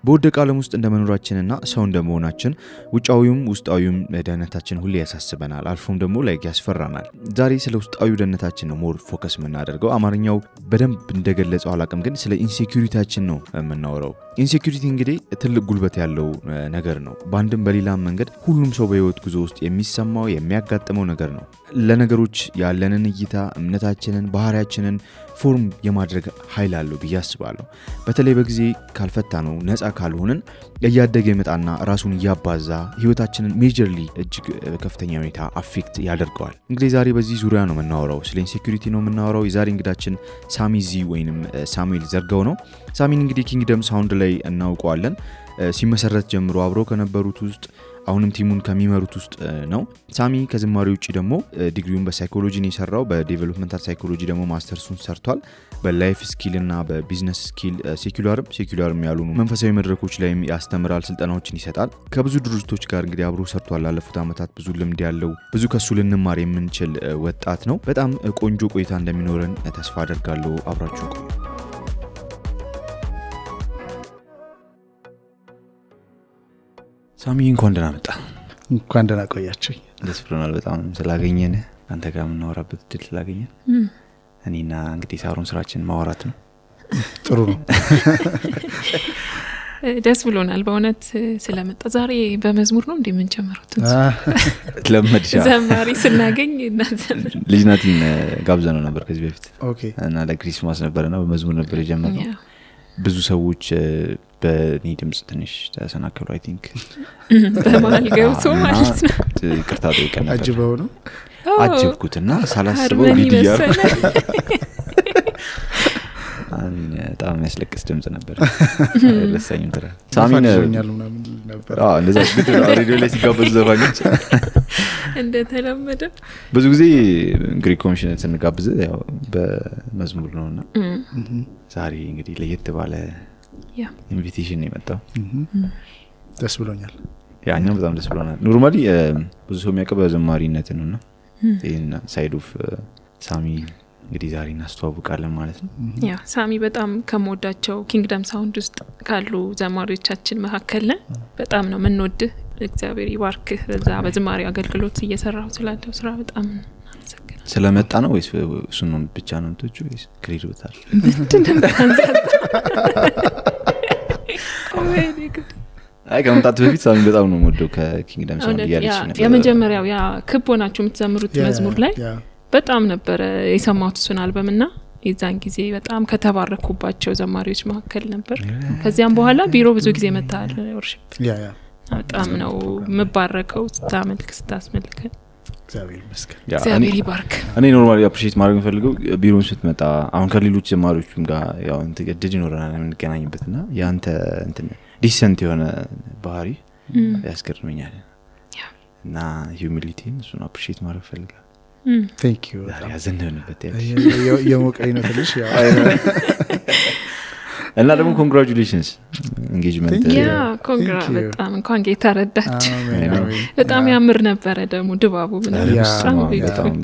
በወደቀ ዓለም ውስጥ እንደመኖራችንና ሰው እንደመሆናችን ውጫዊውም ውስጣዊውም ደህንነታችን ሁሌ ያሳስበናል አልፎም ደግሞ ላይ ያስፈራናል ዛሬ ስለ ውስጣዊ ደህንነታችን ነው ሞር ፎከስ የምናደርገው አማርኛው በደንብ እንደገለጸው አላቅም ግን ስለ ኢንሴኩሪቲያችን ነው የምናወራው ኢንሴኩሪቲ እንግዲህ ትልቅ ጉልበት ያለው ነገር ነው በአንድም በሌላም መንገድ ሁሉም ሰው በህይወት ጉዞ ውስጥ የሚሰማው የሚያጋጥመው ነገር ነው ለነገሮች ያለንን እይታ እምነታችንን ባህሪያችንን ፎርም የማድረግ ኃይል አለው በያስባለሁ በተለይ በጊዜ ካልፈታ ነው ነፃ ካልሆነን ያያደገ ይመጣና ራሱን ያባዛ ህይወታችንን ሜጀርሊ እጅግ ከፍተኛ ሁኔታ አፌክት ያደርገዋል እንግዲህ ዛሬ በዚህ ዙሪያ ነው የምናወራው ስለ ኢንሴኩሪቲ ነው የምናወራው የዛሬ እንግዳችን ሳሚ ዚ ወይንም ሳሙኤል ዘርጋው ነው ሳሚን እንግዲህ ኪንግደም ሳውንድ ላይ እናውቀዋለን ሲመሰረት ጀምሮ አብሮ ከነበሩት ውስጥ አሁንም ቲሙን ከሚመሩት ውስጥ ነው ሳሚ ከዝማሬ ውጪ ደግሞ ዲግሪውን በሳይኮሎጂ ነው የሰራው በዴቨሎፕመንታል ሳይኮሎጂ ደግሞ ማስተርሱን ሰርቷል በላይፍ ስኪል እና በቢዝነስ ስኪል ሴኩላርም ያሉ መንፈሳዊ መድረኮች ላይ ያስተምራል ስልጠናዎችን ይሰጣል ከብዙ ድርጅቶች ጋር እንግዲህ አብሮ ሰርቷል ላለፉት አመታት ብዙ ልምድ ያለው ብዙ ከሱ ልንማር የምንችል ወጣት ነው በጣም ቆንጆ ቆይታ እንደሚኖረን ተስፋ አደርጋለሁ አብራችሁ ቆዩ ሳሚ እንኳን ደህና ቆያችሁ ደስ ብሎናል በጣም ስላገኘን አንተ ጋር ምናወራበት ድል ስላገኘን እኔና እንግዲህ ሳሮን ስራችን ማወራት ነው ጥሩ ነው ደስ ብሎናል በእውነት ስለመጣ ዛሬ በመዝሙር ነው እንደምንጨምሩት ለምድሻ ዘማሪ ስናገኝ እናዘምር ልጅናቲን ጋብዘነው ነበር ከዚህ በፊት ኦኬ እና ለክሪስማስ ነበርና በመዝሙር ነበር የጀመረው ብዙ ሰዎች በኔ ድምጽ ትንሽ ተሰናከሉ አይ ቲንክ በማል ገብቶ ማለት ነው ይቅርታ ጠይቀን ነበር አጅበው ነው አጅብኩትና ሳላስበው ቪዲዮ በጣም ያስለቅስ ድምጽ ነበር ለሰኝም ተራ ሳሚን ነበር እንደዛ ግድ ሬዲዮ ላይ ሲጋበዙ ዘፋኞች እንደተለመደ ብዙ ጊዜ ግሪክ ኮሚሽን ስንጋብዝ ያው በመዝሙር ነውና ዛሬ እንግዲህ ለየት ባለ ኢንቪቴሽን ነው የመጣው ደስ ብሎኛል ያኛው በጣም ደስ ብሎናል ኖርማሊ ብዙ ሰው የሚያቀበው ዘማሪነት ነውና እና ሳይድ ኦፍ ሳሚ እንግዲህ ዛሬ እናስተዋውቃለን ማለት ነው ያ ሳሚ በጣም ከመወዳቸው ኪንግደም ሳውንድ ውስጥ ካሉ ዘማሪዎቻችን መካከል በጣም ነው የምንወድህ እግዚአብሔር ይባርክ በዛ በዝማሬ አገልግሎት እየሰራው ስላለው ስራ በጣም እናመሰግናለን ስለመጣ ነው ወይስ እሱን ነው ብቻ ነው እንቶቹ ወይስ ክሬዲቶታል አይ ከመጣት በፊት ሳሚ በጣም ነው የምወደው ከኪንግደም ሳውንድ ያለች ነበር የመጀመሪያው ያ ክቦናችሁ የምትዘምሩት መዝሙር ላይ በጣም ነበር የሰማሁት እሱን አልበምና የዛን ጊዜ በጣም ከተባረኩባቸው ዘማሪዎች መካከል ነበር ከዚያም በኋላ ቢሮ ብዙ ጊዜ መጣል ወርሺፕ ያ በጣም ነው መባረከው ስታመልክ ስታስመልክ እግዚአብሔር ይመስገን እግዚአብሔር ይባርክ እኔ ኖርማሊ አፕሪሺየት ማድረግ ፈልገው ቢሮን ስትመጣ አሁን ከሌሎች ዘማሪዎችም ጋር ያው እንተገድድ ይኖርናል የምንገናኝበትና ያንተ እንትን ዲሰንት የሆነ ባህሪ ያስገርመኛል እና ሂዩሚሊቲን እሱን አፕሪሺየት ማድረግ ፈልጋለሁ thank you ያ ዘንደንበት የሞቀኝ ነው ትልሽ ያው እና ደግሞ ኮንግራቹሌሽንስ ኢንጌጅመንት ያ ኮንግራ በጣም እንኳን ጌታ ረዳችሁ በጣም ያምር ነበር ደግሞ ድባቡ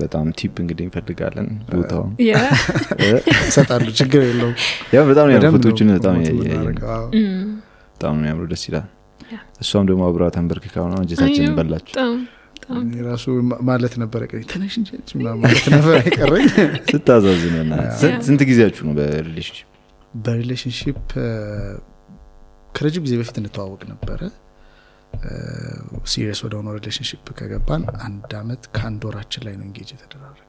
በጣም ቲፕ እንግዲህ እንፈልጋለን ቦታው ያ ሰጣሉ ችግር የለውም ያ በጣም ነው ፎቶዎችን በጣም ያምሩ ደስ ይላል እሷም ደግሞ አብራ ተንበርክካው ነው እንጀታችንን በላችሁ ራሱ ማለት ነበር ተነሽ እንጂ ማለት ነበር አይቀርኝ ስታዛዝነና ስንት ጊዜያችሁ ነው በሪሌሽንሺፕ ከረጅም ጊዜ በፊት እንተዋወቅ ነበር ሲሪየስ ወደ ሆነ ሪሌሽንሺፕ ከገባን አንድ አመት ከአንድ ወራችን ላይ ነው እንጌጅ የተደረገው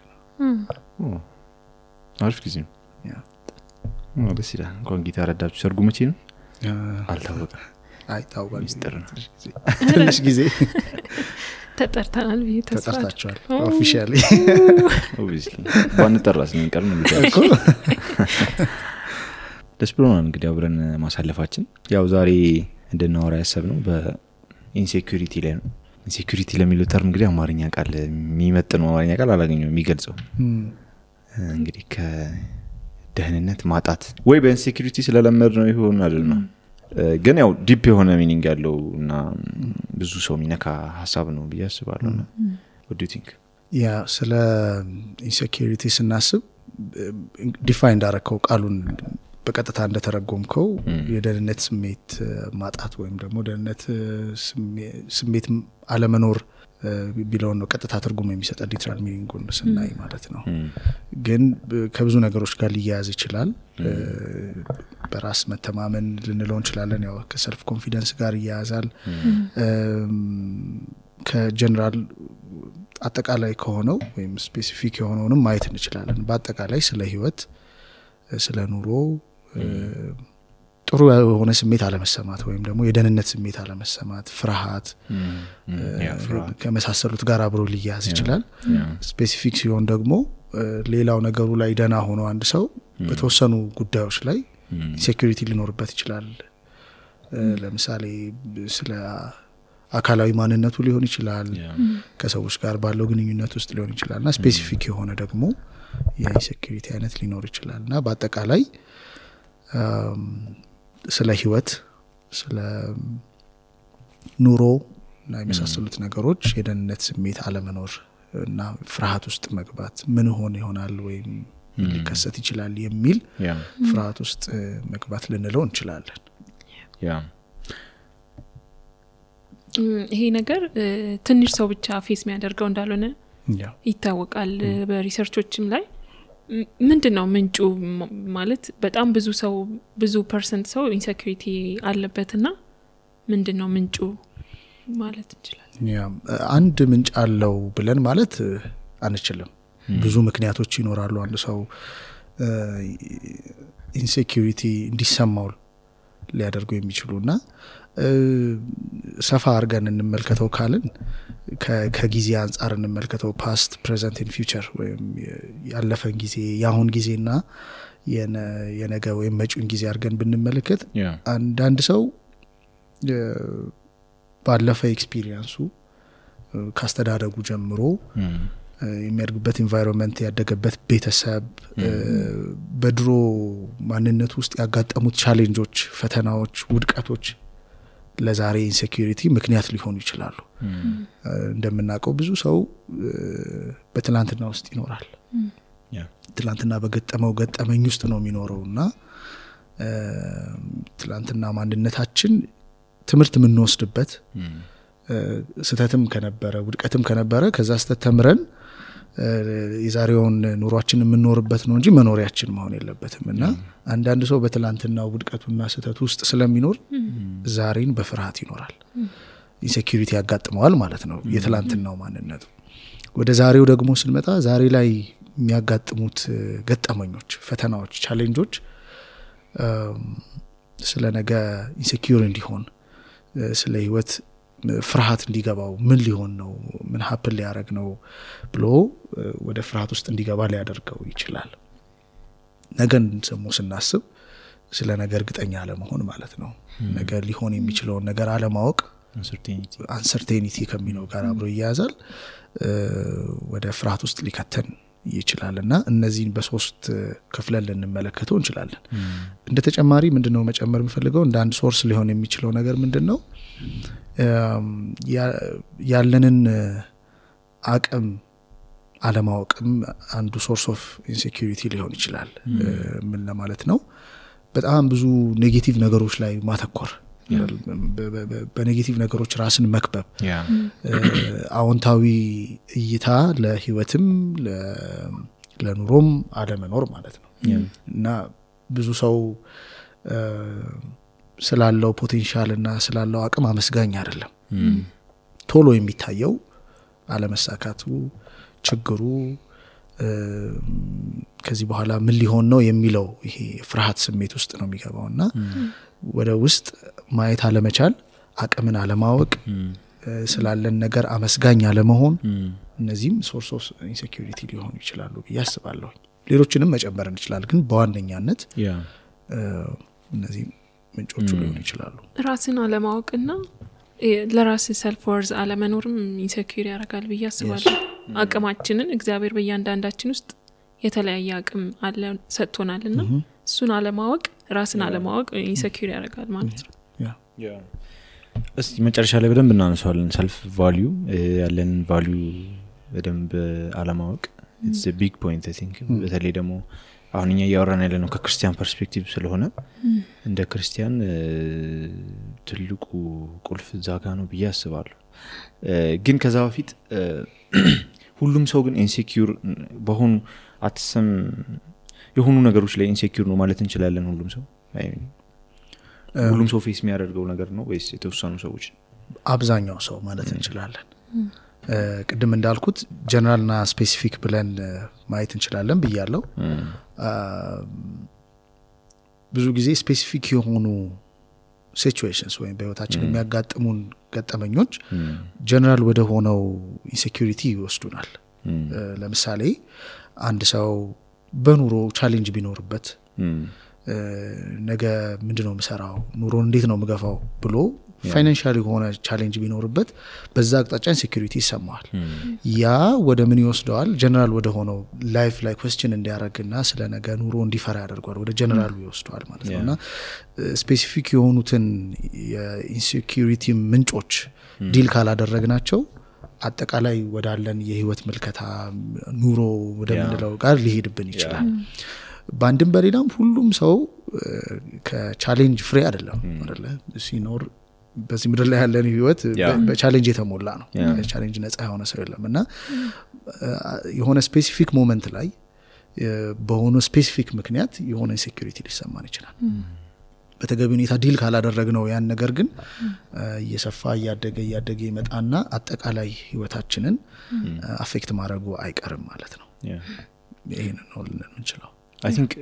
አሪፍ ጊዜ ነው ያ ደስ ይላል እንኳን ጌታ ረዳችሁ ሰርጉ መቼ ነው አልታወቀም አይታወቅም ሚስጥር ነው ትንሽ ጊዜ ተጠርተናል ተጠርታችኋል ኦፊሻሊ ኦብቪስሊ ባንጠራስ ነው እንቀር ነው እኮ ደስ ብሎናል እንግዲህ አብረን ማሳለፋችን ያው ዛሬ እንድናወራ ያሰብነው በኢንሴኩሪቲ ላይ ነው ኢንሴኩሪቲ ለሚለው ተርም እንግዲህ አማርኛ ቃል የሚመጥነው አማርኛ ቃል አላገኘው የሚገልጸው እንግዲህ ከደህንነት ማጣት ወይ በኢንሴኩሪቲ ስለለመድ ነው ይሆን አይደለም ግን ያው ዲፕ የሆነ ሚኒንግ ያለውና ብዙ ሰው ሚነካ ሐሳብ ነው በያስባለሁ what do you think ያ ስለ ኢንሴኩሪቲ ስናስብ ዲፋይንድ አረከው ቃሉን በቀጥታ እንደተረጎምከው የደህንነት ስሜት ማጣት ወይም ደግሞ ደህንነት ስሜት አለመኖር ቢለው ነው ቀጥታ ትርጉም የሚሰጠው ሊትራል ሚኒንጉን ስናይ ማለት ነው። ግን ከብዙ ነገሮች ጋር ሊያያዝ ይችላል። በራስ መተማመን ልንለው እንችላለን። ያው ከሰልፍ ኮንፊደንስ ጋር ይያያዛል። ከጀነራል አጠቃላይ ከሆነው ወይም ስፔሲፊክ የሆነውንም ማየት እንችላለን። በአጠቃላይ ስለ ህይወት ስለ ኑሮ ጥሩ የሆነ ስሜት አለመሰማት ወይም ደግሞ የደህንነት ስሜት አለመሰማት፣ ፍርሃት ከመሳሰሉት ጋር አብሮ ሊያያዝ ይችላል። ስፔሲፊክ ሲሆን ደግሞ ሌላው ነገሩ ላይ ደና ሆኖ አንድ ሰው በተወሰኑ ጉዳዮች ላይ ኢንሴኩሪቲ ሊኖርበት ይችላል። ለምሳሌ ስለ አካላዊ ማንነቱ ሊሆን ይችላል፣ ከሰዎች ጋር ባለው ግንኙነት ውስጥ ሊሆን ይችላልና ስፔሲፊክ የሆነ ደግሞ የኢንሴኩሪቲ አይነት ሊኖር ይችላልና በአጠቃላይ ስለ ህይወት ስለ ኑሮ እና የመሳሰሉት ነገሮች የደህንነት ስሜት አለመኖር እና ፍርሃት ውስጥ መግባት ምን ሆነ ይሆናል ወይም ሊከሰት ይችላል የሚል ፍርሃት ውስጥ መግባት ልንለው እንችላለን። ይሄ ነገር ትንሽ ሰው ብቻ ፌስ የሚያደርገው እንዳልሆነ ይታወቃል። በሪሰርቾችም ላይ ምንድነው ምንጩ ማለት በጣም ብዙ ፐርሰንት ሰው ኢንሴኩሪቲ አለበትና ምንድነው ምንጩ ማለት እንችላለን? አንድ ምንጭ አለው ብለን ማለት አንችልም። ብዙ ምክንያቶች ይኖራሉ አንድ ሰው ኢንሴኩሪቲ እንዲሰማው ሊያደርጉ የሚችሉና ሰፋ አርገን እንመልከተው ካልን ከጊዜ አንፃር እንመልከተው ፓስት ፕሬዘንት ኤንድ ፊውቸር ወይም ያለፈን ጊዜ ያሁን ጊዜና የነገ ወይም መጪውን ጊዜ አርገን ብንመለከት አንድ ሰው ባለፈ ኤክስፒሪየንሱ ካስተዳደጉ ጀምሮ የሚያድግበት ኢንቫይሮንመንት ያደገበት ቤተሰብ በድሮ ማንነት ውስጥ ያጋጠሙት ቻሌንጆች፣ ፈተናዎች፣ ውድቀቶች ለዛሬ ኢንሴኩሪቲ ምክንያት ሊሆኑ ይችላሉ። እንደምናውቀው ብዙ ሰው በትላንትና ውስጥ ይኖራል። ትላንትና በገጠመው ገጠመኝ ውስጥ ነው የሚኖረውና ትላንትና ማንነታችን ትምህርት የምንወስድበት ስተትም ከነበረ ውድቀትም ከነበረ ከዛ ስተት ተምረን የዛሬውን ኑሯችን የምንኖርበት ነው እንጂ መኖሪያችን መሆን የለበትምና አንዳንድ ሰው በትላንትናው ውድቀቱና ስተት ውስጥ ስለሚኖር ዛሬን በፍርሃት ይኖራል። ኢንሴኩሪቲ ያጋጥመዋል ማለት ነው የትላንትናው ማንነቱ። ወደ ዛሬው ደግሞ ስንመጣ ዛሬ ላይ የሚያጋጥሙት ገጠመኞች፣ ፈተናዎች፣ ቻሌንጆች ስለ ነገ ኢንሴኩር እንዲሆን ስለ ህይወት ፍርሃት እንዲገባው ምን ሊሆን ነው ምን ሀፕን ሊያደርግ ነው ብሎ ወደ ፍርሃት ውስጥ እንዲገባ ሊያደርገው ይችላል። ነገን ደግሞ ስናስብ ስለ ነገር እርግጠኛ አለመሆን ማለት ነው። ነገ ሊሆን የሚችለውን ነገር አለማወቅ አንሰርቴኒቲ ከሚለው ጋር አብሮ ይያዛል። ወደ ፍርሃት ውስጥ ሊከተን ይችላልና እነዚህን በሶስት ክፍለን ልንመለከተው እንችላለን። እንደ ተጨማሪ ምንድነው መጨመር የምፈልገው እንደ አንድ ሶርስ ሊሆን የሚችለው ነገር ምንድነው ያለንን አቅም አለማወቅም አንዱ ሶርስ ኦፍ ኢንሴኩሪቲ ሊሆን ይችላል። ምን ለማለት ነው? በጣም ብዙ ኔጌቲቭ ነገሮች ላይ ማተኮር፣ በኔጌቲቭ ነገሮች ራስን መክበብ፣ አዎንታዊ እይታ ለህይወትም ለኑሮም አለመኖር ማለት ነው እና ብዙ ሰው ስላለው ፖቴንሻል እና ስላለው አቅም አመስጋኝ አይደለም። ቶሎ የሚታየው አለመሳካቱ፣ ችግሩ ከዚህ በኋላ ምን ሊሆን ነው የሚለው ይሄ ፍርሃት ስሜት ውስጥ ነው የሚገባውና ወደ ውስጥ ማየት አለመቻል፣ አቅምን አለማወቅ፣ ስላለን ነገር አመስጋኝ አለመሆን እነዚህም ሶርስ ኦፍ ኢንሴኩሪቲ ሊሆኑ ይችላሉ ብዬ አስባለሁ። ሌሎችንም መጨመር እንችላለን ግን በዋነኛነት እነዚህ ምንጮቹ ሊሆኑ ይችላሉ። ራስን አለማወቅና ለራስ ሰልፍ ወርዝ አለመኖርም ኢንሴኩር ያደርጋል ብዬ አስባለሁ። አቅማችንን እግዚአብሔር በእያንዳንዳችን ውስጥ የተለያየ አቅም አለ ሰጥቶናልና እሱን አለማወቅ ራስን አለማወቅ ኢንሴኩር ያደርጋል ማለት ነው። እስቲ መጨረሻ ላይ በደንብ እናነሳዋለን። ሰልፍ ቫልዩ ያለን ቫልዩ በደንብ አለማወቅ it's a big point I think በተለይ ደግሞ አሁንኛ ያወራን ያለ ነው ከክርስቲያን ፐርስፔክቲቭ ስለሆነ እንደ ክርስቲያን ትልቁ ቁልፍ ዛጋ ነው ብዬ አስባለሁ ግን ከዛ በፊት ሁሉም ሰው ግን ኢንሴኪዩር በሆኑ አትሰም የሆኑ ነገሮች ላይ ኢንሴኪዩር ነው ማለት እንችላለን ሁሉም ሰው ፌስ የሚያደርገው ነገር ነው ወይስ የተወሰኑ ሰዎች አብዛኛው ሰው ማለት እንችላለን ቅድም እንዳልኩት ጀነራልና ስፔሲፊክ ብለን ማየት እንችላለን ብያለሁ ብዙ ጊዜ ስፔሲፊክ የሆኑ ሲቹዌሽንስ ወይም በህይወታችን የሚያጋጥሙን ገጠመኞች ጀነራል ወደ ሆነው ኢንሴኩሪቲ ይወስዱናል ለምሳሌ አንድ ሰው በኑሮ ቻሌንጅ ቢኖርበት ነገ ምንድነው መሰራው ኑሮ እንዴት ነው መገፋው ብሎ ፋይናንሻሊ ሆነ ቻሌንጅ ቢኖርበት በዛ አቅጣጫ ኢንሴኩሪቲ ይሰማዋል ያ ወደ ምን ይወስደዋል ጀነራል ወደ ሆነው ላይፍ ላይ ኩዌስችን እንዲያረግና ስለ ነገ ኑሮ እንዲፈራ ያደርጋል ወደ ጀነራሉ ይወስደዋል ማለት ነውና ስፔሲፊክ የሆኑትን የኢንሴኩሪቲ ምንጮች ዲል ካላደረግናቸው አጠቃላይ ወዳለን የህይወት መልከታ ኑሮ ወደምንለው ጋር ሊሄድብን ይችላል ባንድም በሌላም ሁሉም ሰው ከቻሌንጅ ፍሬ አይደለም አይደለ ሲኖር በዚህ ምድር ላይ ያለን ህይወት በቻሌንጅ የተሞላ ነው ቻሌንጅ ነፃ የሆነ ሰው የለምና የሆነ ስፔሲፊክ ሞመንት ላይ በሆነ ስፔሲፊክ ምክንያት የሆነ ኢንሴኩሪቲ ሊሰማን ይችላል በተገቢ ሁኔታ ዲል ካላደረግነው ያን ነገር ግን እየሰፋ እያደገ ይመጣና አጠቃላይ ህይወታችንን አፌክት ማድረጉ አይቀርም ማለት ነው ይሄንን ነው ልንችለው I think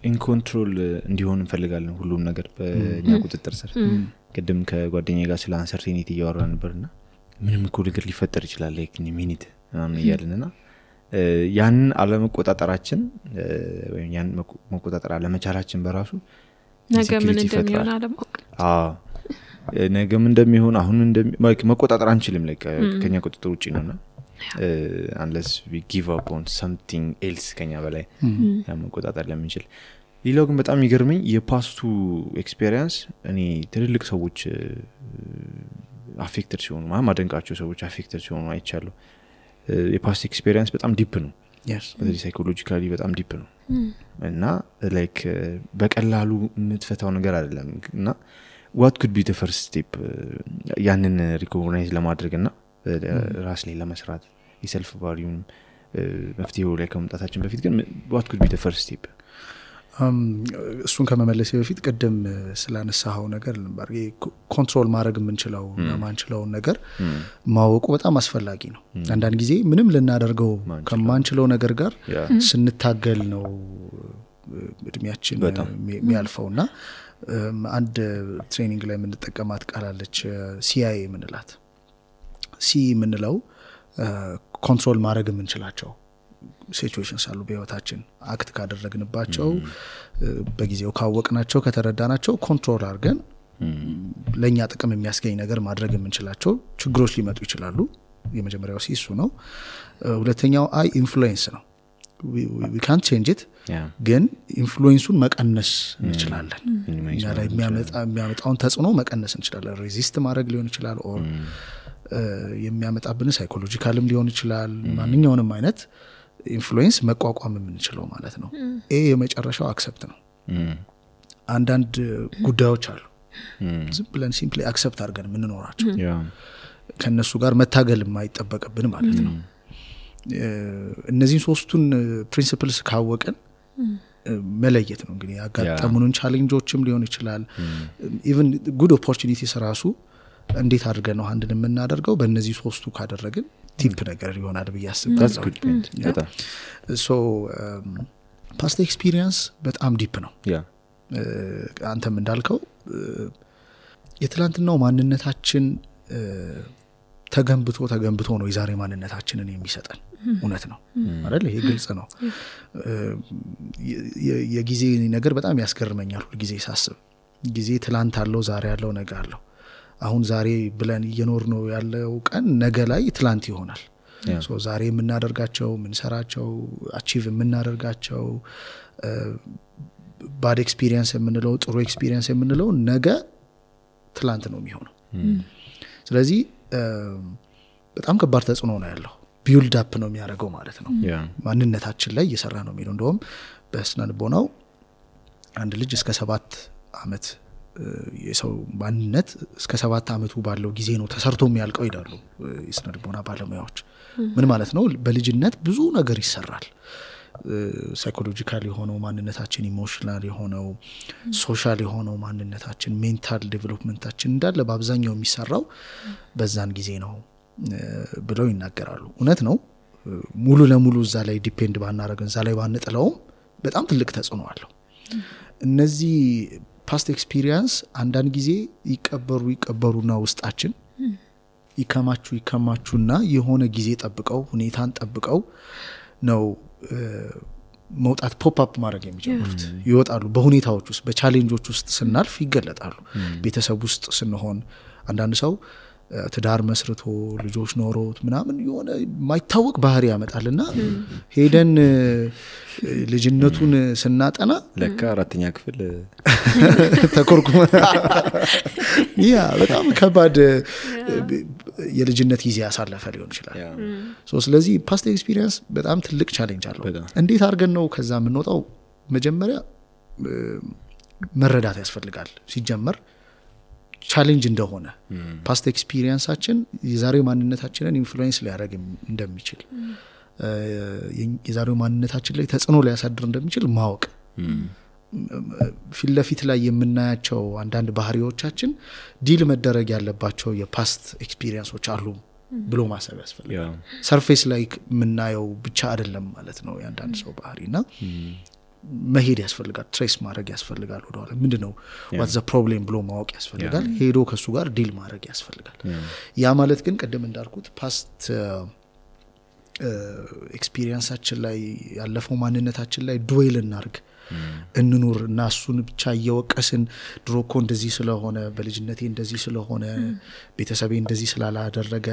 in control እንዲሆን እንፈልጋለን ሁሉም ነገር በእኛ ቁጥጥር ስር ቀደም ከጓደኛዬ ጋር ስለ አንሰርቲኒቲ እያወራን ነበርና ምንም እኮ ነገር ሊፈጠር ይችላል like in a minute ምናምን እያልንና ያን አለመቆጣጠራችን ወይም ያን መቆጣጠር አለመቻላችን በራሱ ነገ ምን እንደሚሆን አለማወቅ ነገ ምን እንደሚሆን አሁን መቆጣጠር አንችልም like ከኛ ቁጥጥር ውጪ ነውና unless we give up on something else ከኛ በላይ መቆጣጠር ለምንችል ሌላው ግን በጣም ይገርመኝ የፓስቱ ኤክስፒሪየንስ እኔ ትልልቅ ሰዎች አፌክትድ ሲሆኑ ማደንቃቸው ሰዎች አፌክትድ ሲሆኑ አይቻለሁ የፓስት ኤክስፒሪየንስ በጣም ዲፕ ነው በዚህ ሳይኮሎጂካሊ በጣም ዲፕ ነው እና ላይክ በቀላሉ የምትፈታው ነገር አይደለም እና what could be the first step ያንን ሪኮግናይዝ ለማድረግና ራስ ላይ ለመስራት የሰልፍ ቫልዩን መፍትሄው ላይ ከመምጣታችን በፊት ግን what could be the first step እሱን ከመመለስ በፊት ቀደም ስላነሳው ነገር ልንባር ኮንትሮል ማድረግ የምንችለው ማንችለው ነገር ማወቁ በጣም አስፈላጊ ነው አንዳንድ ጊዜ ምንም ልናደርገው ከማንችለው ነገር ጋር ስንታገል ነው እድሜያችን የሚያልፈውና አንድ ትሬኒንግ ላይ የምንጠቀማት ቃል አለች CIA ምንላት ሲ ምንለው ኮንትሮል ማድረግ የምንችላቸው ሲቹዌሽንስ አሉ በህይወታችን አክት ካደረግንባቸው በጊዜው ካወቅናቸው ከተረዳናቸው ኮንትሮል አድርገን ለኛ ጥቅም የሚያስገኝ ነገር ማድረግ የምንችላቸው ችግሮች ሊመጡ ይችላሉ የመጀመሪያው ሲሱ ነው ሁለተኛው አይ ኢንፍሉዌንስ ነው we can't change it ግን ኢንፍሉዌንሱን መቀነስ እንችላለን እኛ ላይ የሚያመጣውን ተጽዕኖ መቀነስ እንችላለን ሬዚስት ማድረግ ሊሆን ይችላል ኦር የሚያመጣብን ሳይኮሎጂካልም ሊሆን ይችላል ማንኛውንም አይነት ኢንፍሉዌንስ መቋቋም የምንችለው ማለት ነው የመጨረሻው አክሰፕት ነው አንዳንድ ጉዳዮች አሉ ዝም ብለን ሲምፕሊ አክሰፕት አድርገን የምንኖራቸው ከነሱ ጋር መታገል የማይጠበቅብን ማለት ነው እነዚህን ሶስቱን ፕሪንሲፕልስ ካወቀን መለየት ነው እንግዲህ ያጋጠሙንን ቻሌንጆችም ሊሆን ይችላል ኢቭን ጉድ ኦፖርቹኒቲስ ራሱ እንዴት አድርገን ነው አንድን የምናደርገው በእነዚህ ሶስቱ ካደረግን ቲፕ ነገር ይሆናል በያስባለሁ so past experience በጣም ዲፕ ነው አንተም እንዳልከው የትላንትናው ማንነታችን ተገንብቶ ነው የዛሬ ማንነታችንን የሚሰጠን እውነት ነው አይደል ይሄ ግልጽ ነው የጊዜ ነገር በጣም ያስገርመኛል ሁሉ ጊዜ ሳስብ ጊዜ ትላንት አለው ዛሬ አለው ነገ አለው አሁን ዛሬ ብለን እየኖር ነው ያለው ቀን ነገ ላይ ትላንት ይሆናል ሶ ዛሬ የምናደርጋቸው ምንሰራቸው አቺቭ የምናደርጋቸው ባድ ኤክስፒሪየንስ የምንለው ጥሩ ኤክስፒሪየንስ የምንለው ነገ ትላንት ነው የሚሆነው ስለዚህ በጣም ከባድ ተጽዕኖ ነው ያለው ቢልድ አፕ ነው የሚያደርገው ማለት ነው ማንነታችን ላይ እየሰራ ነው የሚለው እንደውም በስነ ልቦናው አንድ ልጅ እስከ 7 አመት የሰው ማንነት እስከ 7 አመቱ ባለው ጊዜ ነው ተሰርቶ የሚያልቀው ይላሉ የስነ ልቦና ባለሙያዎች። ምን ማለት ነው? በልጅነት ብዙ ነገር ይሰራል። ሳይኮሎጂካል የሆነው ማንነታችን፣ ኢሞሽናል የሆነው፣ ሶሻል የሆነው ማንነታችን፣ ሜንታል ዴቨሎፕመንታችን እንዳለ በአብዛኛው የሚሰራው በዛን ጊዜ ነው ብለው ይናገራሉ። እውነት ነው። ሙሉ ለሙሉ እዛ ላይ ዲፔንድ ባናረግን፣ እዛ ላይ ባንጥለውም በጣም ትልቅ ተጽዕኖ አለው። እነዚህ ፓስት ኤክስፒሪየንስ አንዳንድ ጊዜ ይቀበሩና ውስጣችን ይከማቹና የሆነ ጊዜ ጠብቀው ሁኔታን ጠብቀው ነው መውጣት ፖፕ አፕ ማድረግ የሚጀምሩት። ይወጣሉ። በሁኔታዎች ውስጥ በቻሌንጆች ውስጥ ስናልፍ ይገለጣሉ። ቤተሰብ ውስጥ ስንሆን አንዳንድ ሰው ትዳር መስርቶ ልጆች ኖሮት ምናምን የሆነ ማይታወቅ ባህሪ ያመጣልና ሄደን ልጅነቱን ስናጠና ለካ 4ኛ ክፍል ተኮርኩመ ያ በጣም ከባድ የልጅነት ጊዜ ያሳለፈ ሊሆን ይችላል። ስለዚህ ፓስት ኤክስፒሪየንስ በጣም ትልቅ ቻሌንጅ አለው። እንዴት አድርገን ነው ከዛ የምንወጣው? መጀመሪያ መረዳት ያስፈልጋል። ሲጀመር ቻሌንጅ እንደሆነ ፓስት ኤክስፒሪየንሳችን የዛሬው ማንነታችንን ኢንፍሉዌንስ ሊያደርግ እንደሚችል፣ የዛሬው ማንነታችን ላይ ተጽዕኖ ሊያሳድር እንደሚችል ማወቅ፣ ፊት ለፊት ላይ የምናያቸው አንዳንድ ባህሪዎቻችን ዲል መደረግ ያለባቸው የፓስት ኤክስፒሪየንሶች አሉ ብሎ ማሰብ ያስፈልጋል። ሰርፌስ ላይ የምናየው ብቻ አይደለም ማለት ነው የአንዳንድ ሰው ባህሪና መሄድ ያስፈልጋል። ትሬስ ማድረግ ያስፈልጋል። ወደኋላ ምንድነው what's the problem ብሎ ማወቅ ያስፈልጋል። ሄዶ ከሱ ጋር ዲል ማድረግ ያስፈልጋል። ያ ማለት ግን ቀደም እንዳልኩት ፓስት ኤክስፒሪየንሳችን ላይ ያለፈው ማንነታችን ላይ ዱዌል እናርግ እንኑር እና እሱን ብቻ እየወቀስን ድሮኮ እንደዚህ ስለሆነ በልጅነቴ እንደዚህ ስለሆነ ቤተሰቤ እንደዚህ ስላላደረገ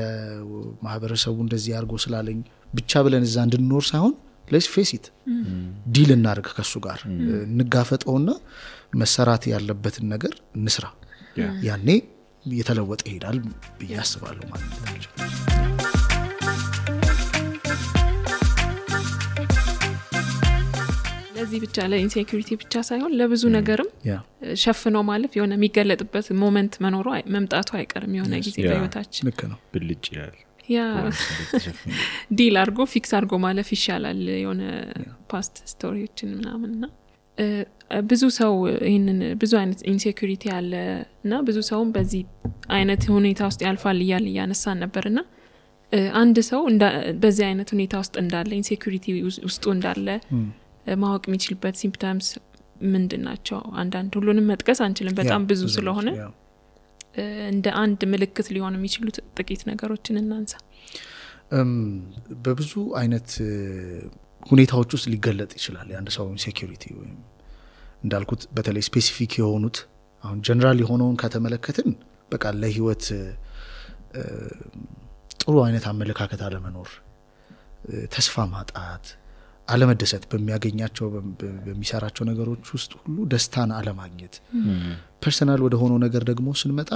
ማህበረሰቡ እንደዚህ አድርጎ ስላለኝ ብቻ ብለን እዛ እንድንኖር ሳይሆን let's face it ዲል እናርግ ከሱ ጋር እንጋፈጠውና መሰራት ያለበትን ነገር እንስራ። ያኔ የተለወጠ ይሄዳል ብዬ አስባለሁ ማለት ነው። ለዚህ ብቻ ለኢንሴኩሪቲ ብቻ ሳይሆን ለብዙ ነገርም ሸፍኖ ማለፍ የሆነ የሚገለጥበት ሞመንት መኖሩ መምጣቱ አይቀርም የሆነ ጊዜ በህይወታችን። ልክ ነው። ብልጭ ይላል። ያ ዲል አርጎ ፊክስ አርጎ ማለፍ ይሻላል የሆነ ፓስት ስቶሪዎችን ምናምንና ብዙ ሰው ይሄንን ብዙ አይነት ኢንሴኩሪቲ አለና ብዙ ሰውም በዚህ አይነት ሁኔታ ውስጥ ያልፋል ያነሳን ነበርና አንድ ሰው በዚህ አይነት ሁኔታ ውስጥ እንዳለ ኢንሴኩሪቲ ውስጡ እንዳለ ማወቅ የሚችልበት ሲምፕተምስ ምንድናቸው? አንዳንድ ሁሉንም መጥቀስ አንችልም በጣም ብዙ ስለሆነ እንደ አንድ ምልክት ሊሆን የሚችሉት ጥቂት ነገሮችን እናንሳ። በብዙ አይነት ሁኔታዎች ውስጥ ሊገለጥ ይችላል የአንድ ሰው ኢንሴኩሪቲ። ወይም እንዳልኩት በተለይ ስፔሲፊክ የሆኑት አሁን ጀነራል የሆነውን ከተመለከትን በቃ ለህይወት ጥሩ አይነት አመለካከት አለመኖር፣ ተስፋ ማጣት፣ አለመደሰት፣ በሚያገኛቸው በሚሰራቸው ነገሮች ውስጥ ሁሉ ደስታን አለማግኘት። ፐርሰናል ወደ ሆነው ነገር ደግሞ ስንመጣ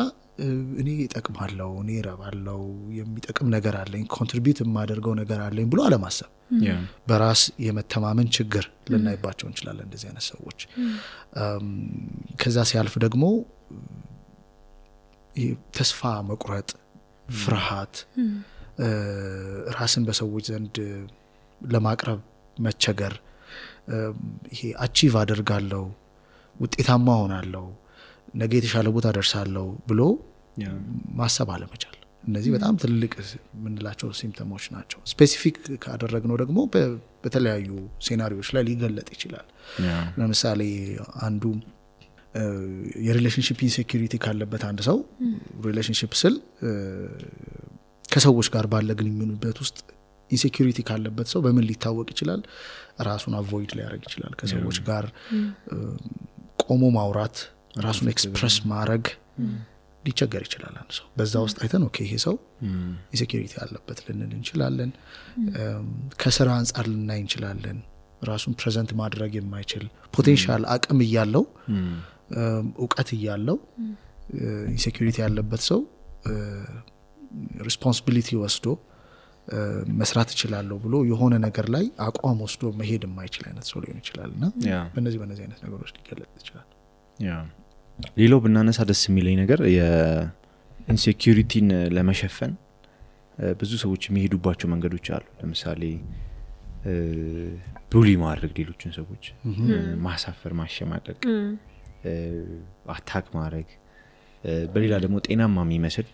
እኔ እጠቅማለሁ፣ እኔ እረባለሁ፣ የሚጠቅም ነገር አለኝ፣ ኮንትሪቢዩት የማደርገው ነገር አለኝ ብሎ አለማሰብ፣ በራስ የመተማመን ችግር ልናይባቸው እንችላለን እንደዚህ አይነት ሰዎች። ከዛ ሲያልፍ ደግሞ ተስፋ መቁረጥ፣ ፍርሃት፣ ራስን በሰዎች ዘንድ ለማቅረብ መቸገር፣ ይሄ አቺቭ አደርጋለሁ፣ ውጤታማ ሆናለሁ፣ ነገ የተሻለ ቦታ ደርሳለሁ ብሎ ማሰብ አለመቻል። እነዚህ በጣም ትልቅ ምንላቸው ሲምፕተሞች ናቸው። ስፔሲፊክ ካደረግነው ደግሞ በተለያዩ ሴናሪዎች ላይ ሊገለጥ ይችላል። ለምሳሌ አንዱ የሪሌሽንሺፕ ኢንሴኩሪቲ ካለበት አንድ ሰው ሪሌሽንሺፕ ስል ከሰዎች ጋር ባለ ግንኙነት ውስጥ ኢንሴኩሪቲ ካለበት ሰው በምን ሊታወቅ ይችላል? ራሱን አቮይድ ሊያደርግ ይችላል። ከሰዎች ጋር ቆሞ ማውራት፣ ራሱን ኤክስፕረስ ማድረግ ሊቸገር ይችላል አንድ ሰው። በዛ ውስጥ አይተን ኦኬ ይሄ ሰው ኢንሴኩሪቲ ያለበት ልንል እንችላለን። ከስራ አንጻር ልናይ እንችላለን። ራሱን ፕሬዘንት ማድረግ የማይችል ፖቴንሻል አቅም እያለው እውቀት እያለው ኢንሴኩሪቲ ያለበት ሰው ሪስፖንሲቢሊቲ ወስዶ መስራት እችላለሁ ብሎ የሆነ ነገር ላይ አቋም ወስዶ መሄድ የማይችል አይነት ሰው ሊሆን ይችላልና በእነዚህ አይነት ነገሮች ሊገለጥ ይችላል። ሌላው ብናነሳ ደስ የሚለኝ ነገር የኢንሴኩሪቲን ለመሸፈን ብዙ ሰዎች የሚሄዱባቸው መንገዶች አሉ። ለምሳሌ ቡሊ ማድረግ፣ ሌሎችን ሰዎች ማሳፈር፣ ማሸማቀቅ፣ አታክ ማድረግ፣ በሌላ ደግሞ ጤናማ የሚመስል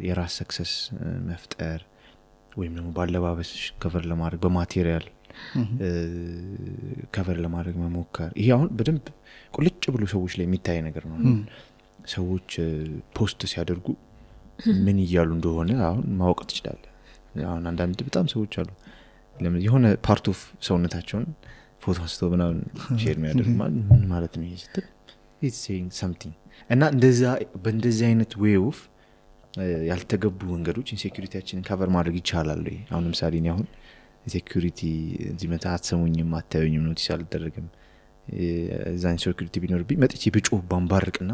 የራስ ሰክሰስ መፍጠር ወይም ደግሞ ባለባበስ ከቨር ለማድረግ በማቴሪያል ከቨር ለማድረግ መሞከር። ይሄ አሁን በደንብ ቁልጭ ብሎ ሰዎች ላይ የሚታይ ነገር ነው። ሰዎች ፖስት ሲያደርጉ ምን እያሉ እንደሆነ አሁን ማወቅ ትችላለህ። አሁን አንዳንድ በጣም ሰዎች አሉ የሆነ ፓርት ኦፍ ሰውነታቸውን ፎቶ አንስተው ምናምን ሼር የሚያደርጉ ማለት ነው። ይሄ ስትል it's saying something እና በእንደዚህ አይነት way of ያልተገቡ መንገዶች ኢንሴኩሪቲያችንን ከቨር ማድረግ ይቻላል ወይ? አሁን ለምሳሌ እኔ አሁን ኢንሴኩሪቲ እዚህ መታ አትሰሙኝም፣ አታዩኝም፣ ኖቲስ አልደረግም እዛ ኢንሴኩሪቲ ቢኖርብኝ መጥቼ ብጮህ ባንባርቅና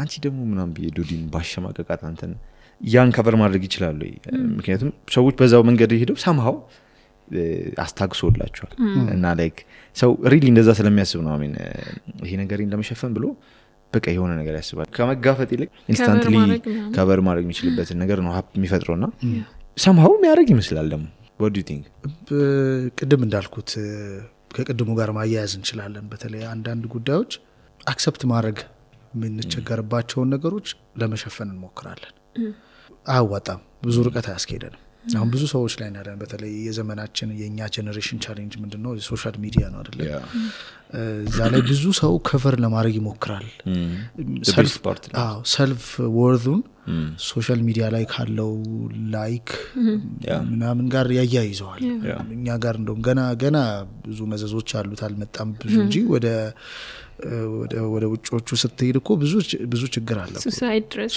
አንቺ ደግሞ ምናምን ቢዶዲን ባሸማቀቃት አንተን ያን ከቨር ማድረግ ይችላል ወይ? ምክንያቱም ሰዎች በዛው መንገድ ሄደው somehow አስታግሶላቸዋል እና ላይክ ሰው ሪሊ እንደዛ ስለሚያስብ ነው አሜን ይሄ ነገርን ለመሸፈን ብሎ በቃ የሆነ ነገር ያስባል። ከመጋፈጥ ይልቅ ኢንስታንትሊ ከቨር ማድረግ የሚችልበት ነገር ነው ሀፕ የሚፈጥረውና somehow የሚያደርግ ይመስላል። ደግሞ what do you think? ቅድም እንዳልኩት ከቅድሙ ጋር ማያያዝ እንችላለን። በተለይ አንዳንድ ጉዳዮች አክሰፕት ማድረግ የምንቸገርባቸውን ነገሮች ለመሸፈን እንሞክራለን። አያዋጣም፣ ብዙ ርቀት አያስኬደንም። አሁን ብዙ ሰዎች ላይ ያለን በተለይ የዘመናችን የኛ ጄነሬሽን ቻሌንጅ ምንድነው? ሶሻል ሚዲያ ነው አይደል? እዛ ላይ ብዙ ሰው ከቨር ለማድረግ ይሞክራል። ሰልፍ ወርዙን ሶሻል ሚዲያ ላይ ካለው ላይክ ምናምን ጋር ያያይዘዋል። እኛ ጋር እንደውም ገና ብዙ መዘዞች አሉት አልመጣም ብዙ እንጂ ወደ ውጮቹ ስትሄድ እኮ ብዙ ችግር አለ።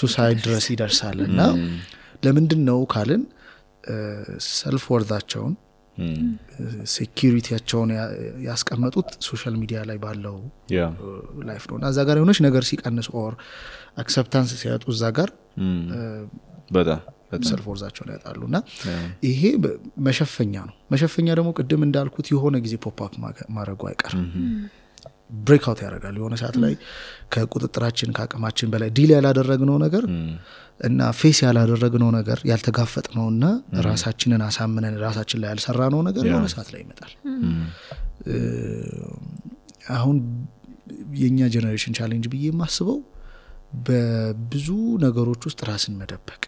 ሱሳይድ ድረስ ይደርሳል። እና ለምንድነው ካልን ሰልፍ ወርዛቸውን ሴኩሪቲያቸውን ያስቀመጡት ሶሻል ሚዲያ ላይ ባለው ላይፍ ነው። እና እዛ ጋር የሆነች ነገር ሲቀንስ ኦር አክሰፕታንስ ሲያጡ እዛ ጋር በጣም ሰልፍ ወርዛቸውን ያጣሉና ይሄ መሸፈኛ ነው። መሸፈኛ ደግሞ ቅድም እንዳልኩት የሆነ ጊዜ ፖፕ አፕ ማድረጉ አይቀርም። ብሬክ አውት ያደርጋል። የሆነ ሰዓት ላይ ከቁጥጥራችን ከአቅማችን በላይ ዲል ያላደረግነው ነገር እና ፌስ ያላደረግነው ነገር ያልተጋፈጥነውና ራሳችንን አሳምነን ራሳችን ላይ ያልሰራነው ነገር የሆነ ሰዓት ላይ ይመጣል። አሁን የኛ ጄነሬሽን ቻሌንጅ ብዬ የማስበው በብዙ ነገሮች ውስጥ ራስን መደበቅ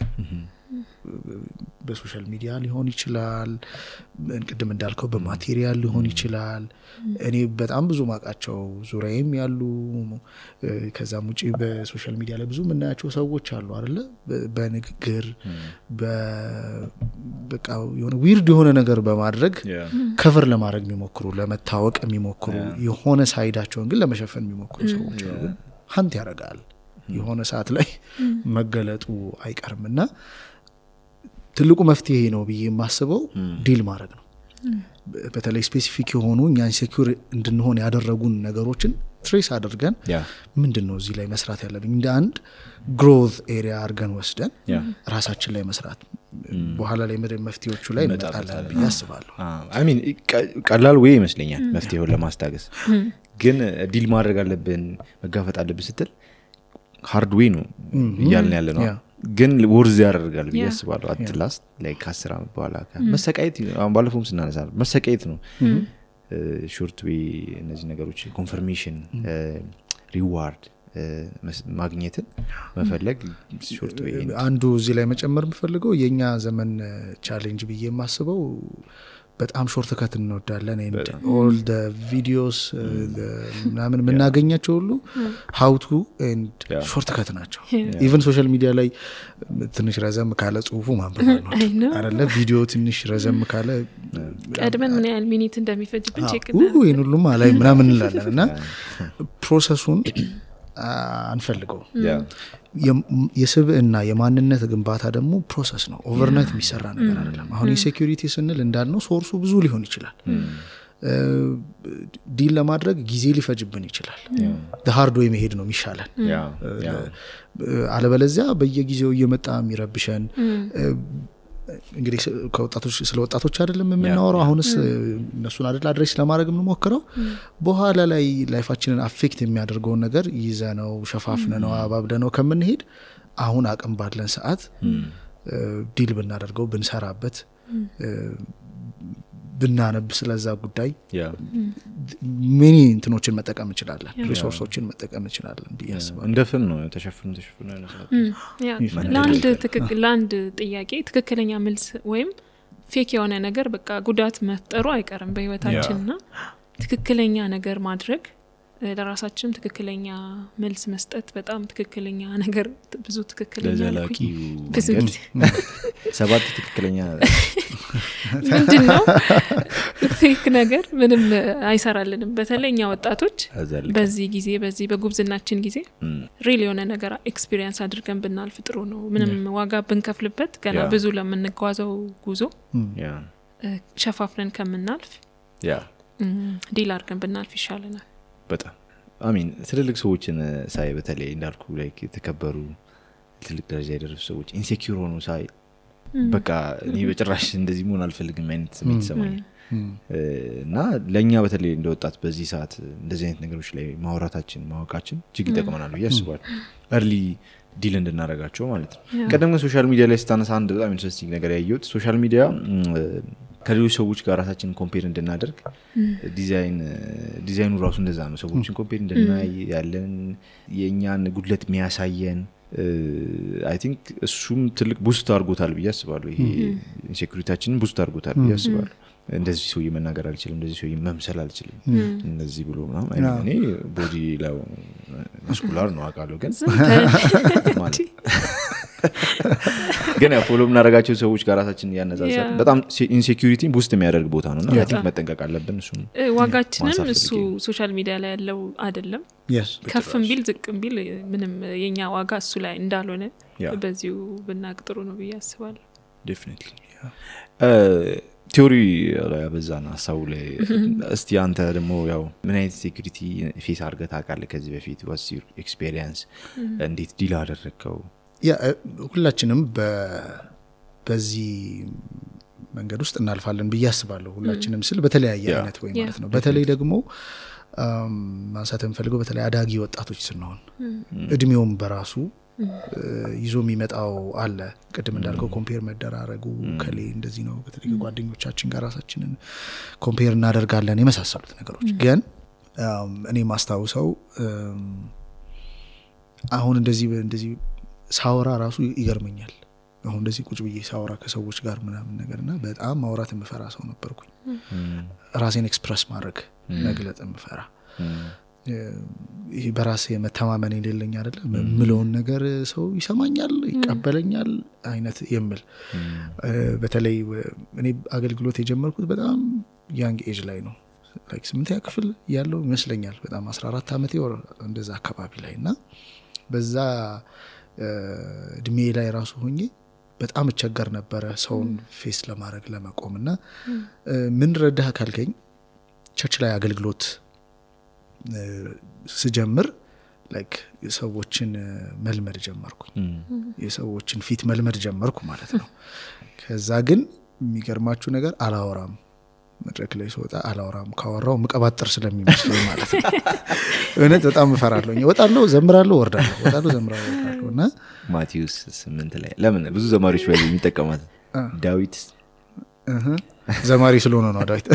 በሶሻል ሚዲያ ሊሆን ይችላል፣ ቅድም እንዳልከው በማቴሪያል ሊሆን ይችላል። እኔ በጣም ብዙ ማቃቸው ዙሪያዬም ያሉ ከዛም ውጪ በሶሻል ሚዲያ ላይ ብዙ ምናያቸው ሰዎች አሉ አይደለ? በንግግር በቃ የሆነ ዊርድ የሆነ ነገር በማድረግ ከቨር ለማድረግ የሚሞክሩ ለመታወቅ የሚሞክሩ የሆነ ሳይዳቸውን ግን ለመሸፈን የሚሞክሩ ሰዎች አሉ። ግን ሀንት ያደርጋል የሆነ ሰዓት ላይ መገለጡ አይቀርምና ትልቁ መፍትሄ ነው ብዬ የማስበው ዲል ማድረግ ነው። በተለይ ስፔሲፊክ የሆኑ እኛ ኢንሴኩር እንድንሆን ያደረጉን ነገሮችን ትሬስ አድርገን ምንድነው እዚህ ላይ መስራት ያለብኝ እንደ አንድ ግሮዝ ኤሪያ አድርገን ወስደን ራሳችን ላይ መስራት በኋላ ላይ መፍትሄዎቹ ላይ እንመጣለን ብዬ አስባለሁ። አይ ሚን ቀላል ወይ ይመስለኛል መፍትሄውን ለማስታገስ። ግን ዲል ማድረግ አለብን መጋፈጥ አለብን ስትል ሃርድ ዌይ ነው እያልን ያለ ነው። ግን ወርዝ ያደርጋል ብዬ አስባለሁ። አትላስት ላይክ 10 አመት በኋላ መሰቃየት አሁን ባለፈውም ስናነሳ መሰቃየት ነው። ሾርት ዌይ እነዚህ ነገሮች ኮንፈርሜሽን ሪዋርድ ማግኘትን መፈለግ ሾርት ዌይ አንዱ እዚህ ላይ መጨመር የምፈልገው የኛ ዘመን ቻሌንጅ ብዬ የማስበው በጣም ሾርት ከት እንወዳለን። and all the videos ምናምን የምናገኛቸው ሁሉ how to and ሾርት ከት ናቸው። even social media ላይ ትንሽ ረዘም ካለ ጽሁፉ ማንበብ ነው አይደለ? ቪዲዮ ትንሽ ረዘም ካለ ቀድመን ምን ያህል ሚኒት እንደሚፈጅብን ቼክ ይሄን ሁሉ ማለት ምናምን እንላለን እና ፕሮሰሱን አንፈልገው። የስብዕና የማንነት ግንባታ ደግሞ ፕሮሰስ ነው። ኦቨርናይት የሚሰራ ነገር አይደለም። አሁን የሴኩሪቲ ስንል እንዳልነው ሶርሱ ብዙ ሊሆን ይችላል። ዲል ለማድረግ ጊዜ ሊፈጅብን ይችላል። ሃርድ ዌይ መሄድ ነው የሚሻለን። አለበለዚያ በየጊዜው እየመጣ የሚረብሸን እንግዲህ ከወጣቶች ስለ ወጣቶች አይደለም የምናወራው አሁንስ እነሱን አይደል አድሬስ ለማድረግ የምንሞክረው በኋላ ላይ ላይፋችንን አፌክት የሚያደርገውን ነገር ይዘነው ሸፋፍነነው አባብደነው ከምንሄድ አሁን አቅም ባለን ሰዓት ዲል ብናደርገው ብንሰራበት ብናነብ ስለዛ ጉዳይ ምን እንትኖችን መጠቀም እንችላለን ሪሶርሶችን መጠቀም እንችላለን ቢያስባ እንደፈን ነው ተሸፍኑ ለአንድ ጥያቄ ትክክለኛ መልስ ወይም ፌክ የሆነ ነገር በቃ ጉዳት መፍጠሩ አይቀርም በህይወታችንና ትክክለኛ ነገር ማድረግ ለራሳችን ትክክለኛ መልስ መስጠት በጣም ትክክለኛ ነገር ብዙ ትክክለኛ ለዘላቂ ሰባት ትክክለኛ ምንድነው ፌክ ነገር ምንም አይሰራልንም በተለይኛ ወጣቶች በዚህ ጊዜ በዚህ በጉብዝናችን ጊዜ ሪል የሆነ ነገር ኤክስፒሪየንስ አድርገን ብናልፍ ጥሩ ነው ምንም ዋጋ ብንከፍልበት ገና ብዙ ለምንጓዘው ጉዞ ሸፋፍነን ከምናልፍ ዲል አድርገን ብናልፍ ይሻለናል በጣም አሚን ትልልቅ ሰዎችን ሳይ በተለይ እንዳልኩ ላይክ የተከበሩ ትልቅ ደረጃ የደረሱ ሰዎች ኢንሴኪዩር ሆኖ ሳይ በቃ እኔ በጭራሽ እንደዚህ መሆን አልፈልግም አይነት ስሜት ሰማኝ እና ለኛ በተለይ እንደወጣት በዚህ ሰዓት እንደዚህ አይነት ነገሮች ላይ ማውራታችን ማወቃችን እጅግ ይጠቅመናል ብዬ አስባለሁ early ዲል እንድናረጋቸው ማለት ነው ቀደም ሶሻል ሚዲያ ላይ ስታነሳ አንድ በጣም ኢንትረስቲንግ ነገር ያየሁት ሶሻል ሚዲያ ከሌሎች ሰዎች ጋር ራሳችንን ኮምፔር እንድናደርግ ዲዛይኑ ራሱ እንደዛ ነው ሰዎችን ኮምፔር እንድናይ ያለን የኛን ጉድለት የሚያሳየን I think እሱም ትልቅ ቡስት አድርጎታል ብዬ አስባለሁ ይሄ ኢንሴኩሪቲያችንን ቡስት አድርጎታል ብዬ አስባለሁ እንደዚህ ሰው መናገር አልችልም እንደዚህ ሰው መምሰል አልችልም እንደዚህ ብሎ ምናምን እኔ ቦዲ ላይ መስኩላር ነው አቃለው ግን ማለት ግን ፎሎ ምናረጋቸው ሰዎች ጋር ራሳችንን ያነዛዛል በጣም ኢንሴኩሪቲን ቡስት የሚያደርግ ቦታ ነውና I think መጠንቀቅ አለብን እሱ ዋጋችንን እሱ ሶሻል ሚዲያ ላይ ያለው አይደለም ከፍም ቢል ዝቅም ቢል ምንም የኛ ዋጋ እሱ ላይ እንዳልሆነ በዚሁ ብናቅጥሩ ነው ብዬ አስባለሁ definitely ቲዮሪ ላይ አበዛና ሐሳቡ ላይ እስቲ አንተ ደግሞ ያው ምን አይነት ሴኩሪቲ ፌስ አድርገህ ታውቃለህ ከዚህ በፊት what's your experience እንዴት ዲል አደረከው ሁላችንም በዚህ መንገድ ውስጥ እናልፋለን ብዬ አስባለሁ ሁላችንም ስል በተለያየ አይነት ወይ ማለት ነው በተለይ ደግሞ ማንሳት እንፈልገው በተለይ አዳጊ ወጣቶች ስንሆን እድሜውም በራሱ ይዞ የሚመጣው አለ ቀደም እንዳልከው ኮምፔር መደራረጉ ከሌ እንደዚህ ነው በተለይ ጓደኞቻችን ጋር ራሳችንን ኮምፔር እናደርጋለን የመሳሰሉት ነገሮች ግን እኔ ማስታውሰው አሁን እንደዚህ ሳወራ ራሱ ይገርመኛል አሁን እንደዚህ ቁጭ ብዬ ሳወራ ከሰዎች ጋር ምናምን ነገርና በጣም ማውራት የምፈራ ሰው ነበርኩኝ ራሴን ኤክስፕረስ ማድረግ መግለጽ የምፈራ ይሄ በራሴ መተማመን የሌለኝ አይደለም ምለውን ነገር ሰው ይሰማኛል ይቀበለኛል አይነት የምል በተለይ እኔ አገልግሎት የጀመርኩት በጣም ያንግ ኤጅ ላይ ነው ላይክ 8ኛ ክፍል ያለው ይመስለኛል በጣም 14 አመት ወር እንደዛ አካባቢ ላይና በዛ እድሜ ላይ ራሱ ሆኜ በጣም እቸገር ነበር ሰውን ፌስ ለማድረግ ለመቆምና ምን ረዳህ ካልከኝ ቸርች ላይ አገልግሎት ስጀምር ላይክ የሰዎችን መልመድ ጀመርኩኝ የሰዎችን ፊት መልመድ ጀመርኩ ማለት ነው ከዛ ግን የሚገርማችሁ ነገር አላወራም መድረክ ላይ ስወጣ አላወራም ካወራው መቀባጠር ስለሚመስለኝ ማለት ነው እውነት በጣም እፈራለሁ ወጣለሁ ዘምራለሁ ወርዳለሁና ማቴዎስ 8 ላይ ለምን ብዙ ዘማሪዎች ወይ የሚጠቀማት ዳዊት ዘማሪ ስለሆነ ነው ዳዊት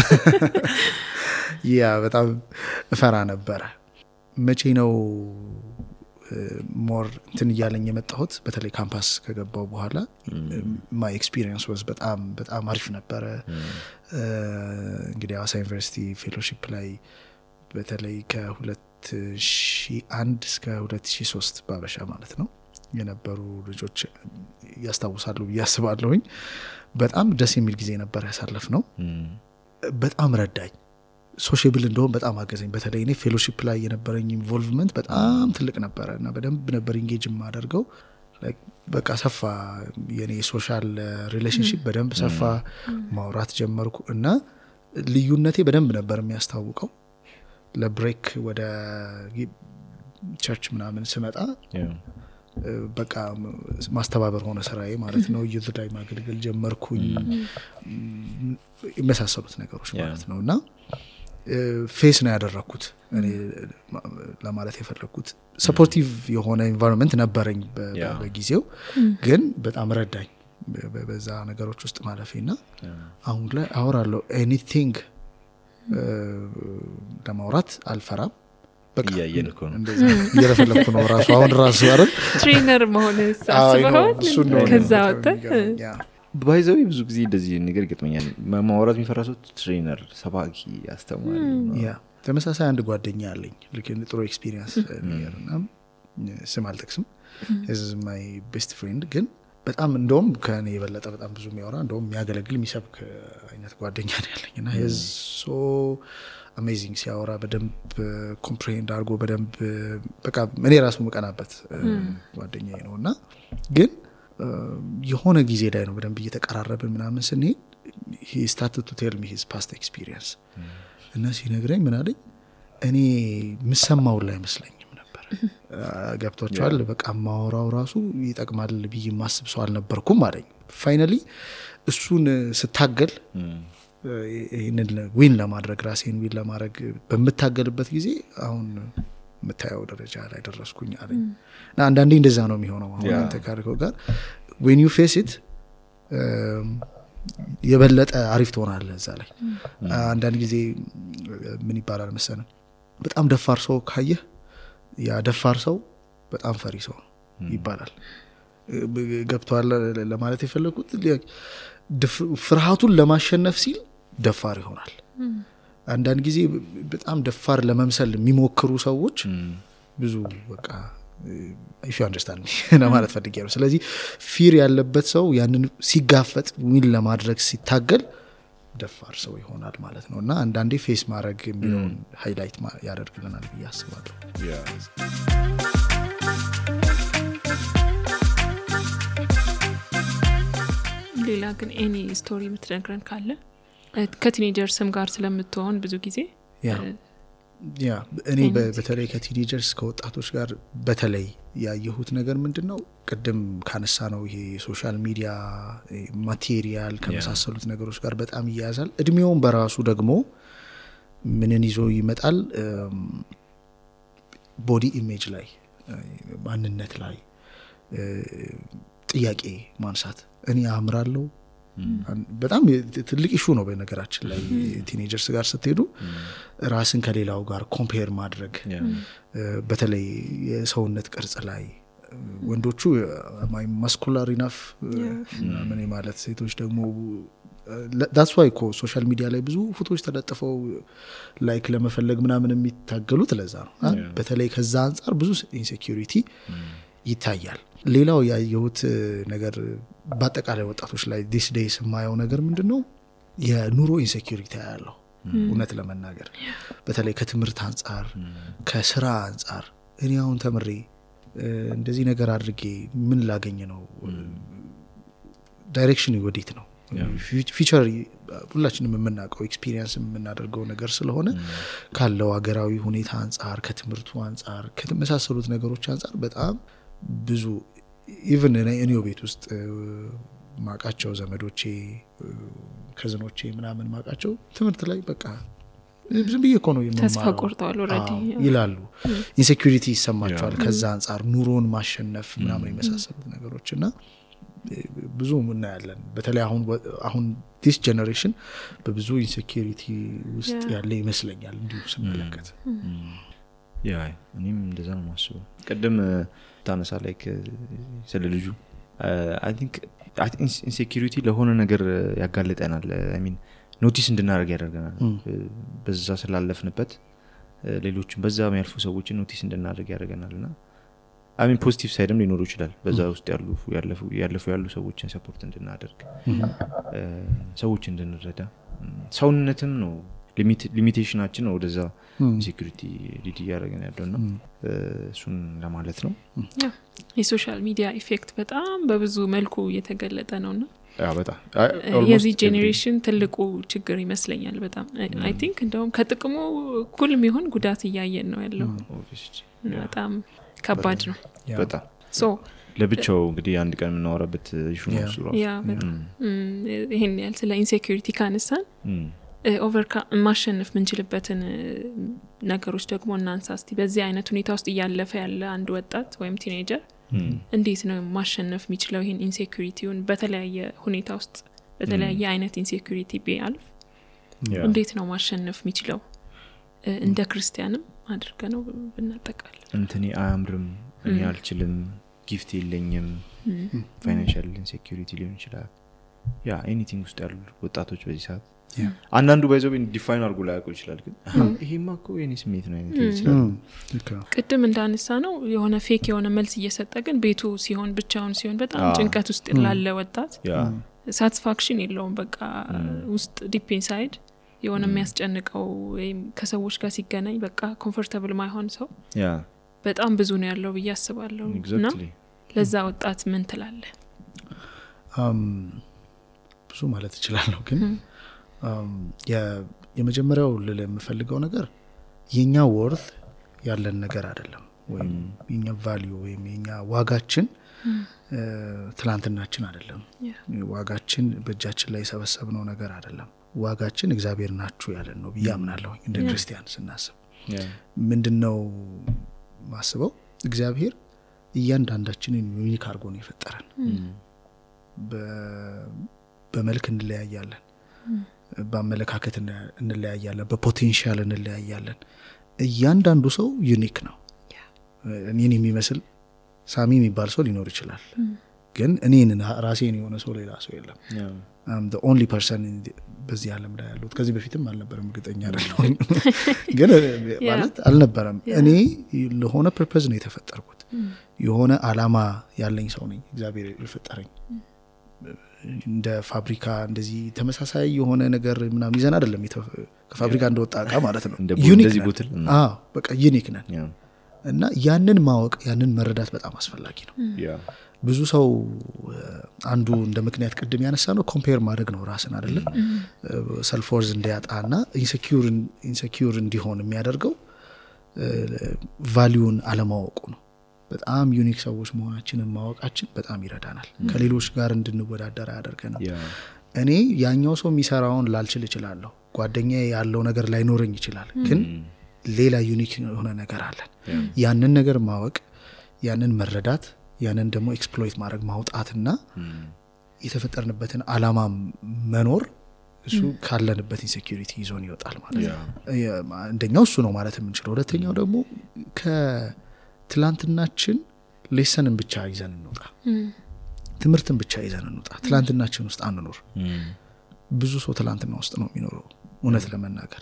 ያ በጣም እፈራ ነበር መቼ ነው ሞር እንትን ያለኝ የመጣሁት በተለይ ካምፓስ ከገባው በኋላ ማይ ኤክስፒሪየንስ ዋዝ በጣም አሪፍ ነበር እንግዲህ አዋሳ ዩኒቨርሲቲ ፌሎሺፕ ላይ በተለይ ከ2001 እስከ 2003 ባበሻ ማለት ነው የነበሩ ልጆች ያስታውሳሉ ያስባለሁኝ በጣም ደስ የሚል ጊዜ ነበር ያሳለፍነው በጣም ረዳኝ ሶሻብል እንደሆነ በጣም አገዘኝ በተለይ እኔ ፌሎሺፕ ላይ የነበረኝ ኢንቮልቭመንት በጣም ትልቅ ነበርና በደንብ ነበር ኢንጌጅ ማደርገው ላይክ በቃ ሰፋ የኔ ሶሻል ሪሌሽንሺፕ በደንብ ሰፋ ማውራት ጀመርኩ እና ልዩነቴ በደንብ ነበር የሚያስታውቀው ለብሬክ ወደ ቸርች ምናምን ስመጣ በቃ ማስተባበር ሆነ ስራዬ ማለት ነው ዩዝ ላይ ማገልገል ጀመርኩኝ የመሳሰሉት ነገሮች ማለት ነውና ፌስ ነው ያደረኩት እኔ ለማለት የፈለኩት ሰፖርቲቭ የሆነ ኢንቫይሮንመንት ነበረኝ በጊዜው ግን በጣም ረዳኝ በዛ ነገሮች ውስጥ ማለፌና አሁን ላይ አወራለሁ ኤኒቲንግ ለማውራት አልፈራም በቃ ያየንኩ ነው እንደዛ እየረፈለኩ ነው ራሱ አይደል ትሬነር መሆንስ አስበኸው ከዛ ወጣ ባይዘው ብዙ ጊዜ እንደዚህ ነገር ገጥመኛል ማውራት የሚፈራሰው ትሬነር ሰባኪ አስተማሪ ያ ተመሳሳይ አንድ ጓደኛ አለኝ ልክ ጥሩ ኤክስፒሪየንስ ነገርና ስም አልጠቅስም is my best friend ግን በጣም እንደውም ከኔ የበለጠ በጣም ብዙ የሚያወራ እንደውም የሚያገለግል የሚሰብክ አይነት ጓደኛ ነው ያለኝና is so amazing ሲያወራ በደንብ ኮምፕሬንድ አድርጎ በደንብ በቃ እኔ ራሱ መቀናበት ጓደኛዬ ነውና ግን የሆነ ጊዜ ላይ ነው በደንብ እየተቀራረብን ምናምን ስንሄድ he started to tell me his past experience እና ሲነግረኝ ምን አለኝ እኔ ምሰማው ላይ መስለኝም ነበር ገብቶቻል በቃ ማወራው ራሱ ይጠቅማል ብዬ ማስብ ሰው አልነበርኩም አለኝ ፋይናሊ እሱን ስታገል ይሄንን ዊን ለማድረግ ራሴን ዊን ለማድረግ በመታገልበት ጊዜ አሁን መታየው ደረጃ ላይ ደረስኩኝ አለኝ እና አንዳንዴ እንደዛ ነው የሚሆነው አሁን አንተ ካርከው ጋር when you face it የበለጠ አሪፍ ትሆናለህ እዛ ላይ አንዳንድ ጊዜ ምን ይባላል መሰለህ በጣም ደፋር ሰው ካየህ ያ ደፋር ሰው በጣም ፈሪ ሰው ይባላል ገብቷል ለማለት የፈለኩት ፍርሃቱን ለማሸነፍ ሲል ደፋር ይሆናል አንዳንድ ጊዜ በጣም ደፋር ለመምሰል የሚሞክሩ ሰዎች ብዙ በቃ if you understand me ለማለት ፈልጌያለሁ ስለዚህ ፊር ያለበት ሰው ያንን ሲጋፈጥ ዊን ለማድረግ ሲታገል ደፋር ሰው ይሆናል ማለት ነውና አንዳንዴ ፌስ ማድረግ የሚለውን ሃይላይት ያደርግልናል ብዬ አስባለሁ ሌላ ግን ኤኒ ስቶሪ የምትነግረን ካለ ከቲኔጀርስም ጋር ስለምትሆን ብዙ ጊዜ ያ እኔ በተለይ ከቲኔጀርስ ከወጣቶች ጋር በተለይ ያየሁት ነገር ምንድነው ቅድም ካነሳ ነው ይሄ ሶሻል ሚዲያ ማቴሪያል ከመሳሰሉት ነገሮች ጋር በጣም ይያዛል እድሜውን በራሱ ደግሞ ምንን ይዞ ይመጣል ቦዲ ኢሜጅ ላይ ማንነት ላይ ጥያቄ ማንሳት እኔ አምራለሁ በጣም ትልቅ ኢሹ ነው በነገራችን ላይ ቲኔጀርስ ጋር ስትሄዱ ራስን ከሌላው ጋር ኮምፔር ማድረግ በተለይ የሰውነት ቅርጽ ላይ ወንዶቹ ማስኩላር ኢናፍ ምን ማለት ሴቶች ደግሞ that's why ሶሻል ሚዲያ ላይ ብዙ ፎቶዎች ተለጥፈው ላይክ ለመፈለግ ምናምን የሚታገሉት ለዛ ነው በተለይ ከዛ አንፃር ብዙ ኢንሴኩሪቲ ይታያል ሌላው ያየሁት ነገር በአጠቃላይ ወጣቶች ላይ this days የማየው ነገር ምንድነው የኑሮ ኢንሴኩሪቲ ያለው እውነት ለመናገር በተለይ ከትምህርት አንፃር ከስራ አንፃር እኔ አሁን ተምሬ እንደዚህ ነገር አድርጌ ምን ላገኝ ነው ዳይሬክሽን ወዴት ነው ፊቸር ሁላችንም የምናውቀው ኤክስፒሪየንስ የምናደርገው ነገር ስለሆነ ካለው ሀገራዊ ሁኔታ አንፃር ከትምህርቱ አንፃር ከተመሳሰሉት ነገሮች አንፃር በጣም ብዙ ኢቭን እኔው ቤት ውስጥ ማቃቸው ዘመዶቼ ከዘኖቼ ምናምን ማቃቸው ትምህርት ላይ በቃ ዝም ብዬ እኮ ነው ተስፋ ቆርጠዋል ኦሬዲ ይላሉ ኢንሴኩሪቲ ይሰማቸዋል ከዛ አንፃር ኑሮን ማሸነፍ ምናምን የመሳሰሉት ነገሮችና ብዙ ምን ያለን በተለይ አሁን this generation በብዙ ኢንሴኩሪቲ ውስጥ ያለ ይመስለኛል እንዲሁ ስመለከት ያ እኔም እንደዛ ነው ማስበው ቀደም ታነሳ ላይክ ስለ ልጁ I think insecurity ለሆነ ነገር ያጋለጠናል I mean ኖቲስ እንድናደርግ ያደርገናል በዛ ስላለፍንበት ሌሎችም በዛ የሚያልፉ ሰዎችን ኖቲስ እንድናደርግ ያደርገናልና I mean ፖዚቲቭ ሳይድም ሊኖር ይችላል በዛ ውስጥ ያሉ ሰዎችን ሰፖርት እንድናደርግ ሰዎች እንድንረዳ ሰውነትም ነው ሊሚቴሽናችን ነው ወደዛ ሴኩሪቲ ሊድ ያደርገን ያለውና እሱን ለማለት ነው የሶሻል ሚዲያ ኢፌክት በጣም በብዙ መልኩ እየተገለጠ ነውና በጣም የዚህ ጄኔሬሽን ትልቁ ችግር ይመስለኛል በጣም አይ ቲንክ እንደውም ከጥቅሙ እኩል የሚሆን ጉዳት እያየን ነው ያለው በጣም ከባድ ነው በጣም ሶ ለብቻው እንግዲህ አንድ ቀን እናወራበት ኢሹ ነው እሱ ራሱ ይሄን ያህል ስለ ኢንሴኩሪቲ ካነሳን ማሸነፍ ምንችልበትን ነገሮች ደግሞ እናንሳ እስቲ። በዚህ አይነት ሁኔታ ውስጥ እያለፈ ያለ አንድ ወጣት ወይም ቲኔጀር እንዴት ነው ማሸነፍ የሚችለው ይሄን ኢንሴኩሪቲውን? በተለያየ ሁኔታ ውስጥ በተለያየ አይነት ኢንሴኩሪቲ ቢያልፍ እንዴት ነው ማሸነፍ የሚችለው? እንደ ክርስቲያንም አድርገ ነው ብናጠቃል። እንትኔ አያምርም፣ እኔ አልችልም፣ ጊፍት የለኝም፣ ፋይናንሻል ኢንሴኩሪቲ ሊሆን ይችላል። ያ ኤኒቲንግ ውስጥ ያሉ ወጣቶች በዚህ ሰዓት አንዳንዱ ባይዘው ዲፋይን አድርጎ ላያውቁ ይችላል። ግን ይሄማ እኮ የኔ ስሜት ነው አይነት ይችላል። ቅድም እንዳነሳ ነው የሆነ ፌክ የሆነ መልስ እየሰጠ ግን ቤቱ ሲሆን ብቻውን ሲሆን በጣም ጭንቀት ውስጥ ላለ ወጣት ሳቲስፋክሽን የለውም። በቃ ውስጥ ዲፕ ኢንሳይድ የሆነ የሚያስጨንቀው ወይም ከሰዎች ጋር ሲገናኝ በቃ ኮምፎርታብል ማይሆን ሰው በጣም ብዙ ነው ያለው ብዬ አስባለሁ። እና ለዛ ወጣት ምን ትላለህ? ብዙ ማለት እችላለሁ ግን የመጀመሪያው ልል የምፈልገው ነገር የኛ ወርት ያለን ነገር አይደለም ወይም የኛ ቫልዩ ወይም የኛ ዋጋችን ትላንትናችን አይደለም። ዋጋችን በእጃችን ላይ ሰበሰብነው ነገር አይደለም። ዋጋችን እግዚአብሔር ናችሁ ያለን ነው ብዬ አምናለሁ። እንደ ክርስቲያን ስናስብ ምንድነው ማስበው? እግዚአብሔር እያንዳንዳችንን ዩኒክ አድርጎ ነው የፈጠረን። በመልክ እንለያያለን፣ በአመለካከት እንለያያለን፣ በፖቴንሻል እንለያያለን። እያንዳንዱ ሰው ዩኒክ ነው። እኔን የሚመስል ሳሚ የሚባል ሰው ሊኖር ይችላል፣ ግን እኔን ራሴን የሆነ ሰው ሌላ ሰው የለም። I'm the only person በዚህ ዓለም ላይ ያለው። ከዚህ በፊትም አልነበረም፣ እርግጠኛ አይደለሁም ግን ማለት አልነበረም። እኔ ለሆነ ፐርፐዝ ነው የተፈጠርኩት። የሆነ አላማ ያለኝ ሰው ነኝ። እግዚአብሔር የፈጠረኝ እንደ ፋብሪካ እንደዚህ ተመሳሳይ የሆነ ነገር ምናምን ይዘን አይደለም ከፋብሪካ እንደወጣ እቃ ማለት ነው። ዩኒክ ነን። በቃ ዩኒክ ነን እና ያንን ማወቅ ያንን መረዳት በጣም አስፈላጊ ነው። ብዙ ሰው አንዱ እንደ ምክንያት ቅድም ያነሳ ነው ኮምፔር ማድረግ ነው ራስን አይደለ? ሰልፍ ወርዝ እንዲያጣና ኢንሴኪዩር እንዲሆን የሚያደርገው ቫልዩን አለማወቁ ነው። በጣም ዩኒክ ሰዎች መሆናችንን ማወቃችን በጣም ይረዳናል። ከሌሎች ጋር እንድንወዳደር ያደርገናል። እኔ ያኛው ሰው የሚሰራውን ላልችል እችላለሁ፣ ጓደኛዬ ያለው ነገር ላይኖረኝ ይችላል፣ ግን ሌላ ዩኒክ የሆነ ነገር አለን። ያንን ነገር ማወቅ፣ ያንን መረዳት፣ ያንን ደግሞ ኤክስፕሎይት ማድረግ ማውጣትና የተፈጠርንበትን አላማ መኖር እሱ ካለንበት ኢንሴኩሪቲ ይዞን ይወጣል ማለት ነው። አንደኛው እሱ ነው ማለት የምንችለው። ሁለተኛው ደግሞ ከትላንትናችን ሌሰንን ብቻ ይዘን እንውጣ፣ ትምህርትን ብቻ ይዘን እንውጣ። ትላንትናችን ውስጥ አንኖር። ብዙ ሰው ትላንትና ውስጥ ነው የሚኖረው እውነት ለመናገር።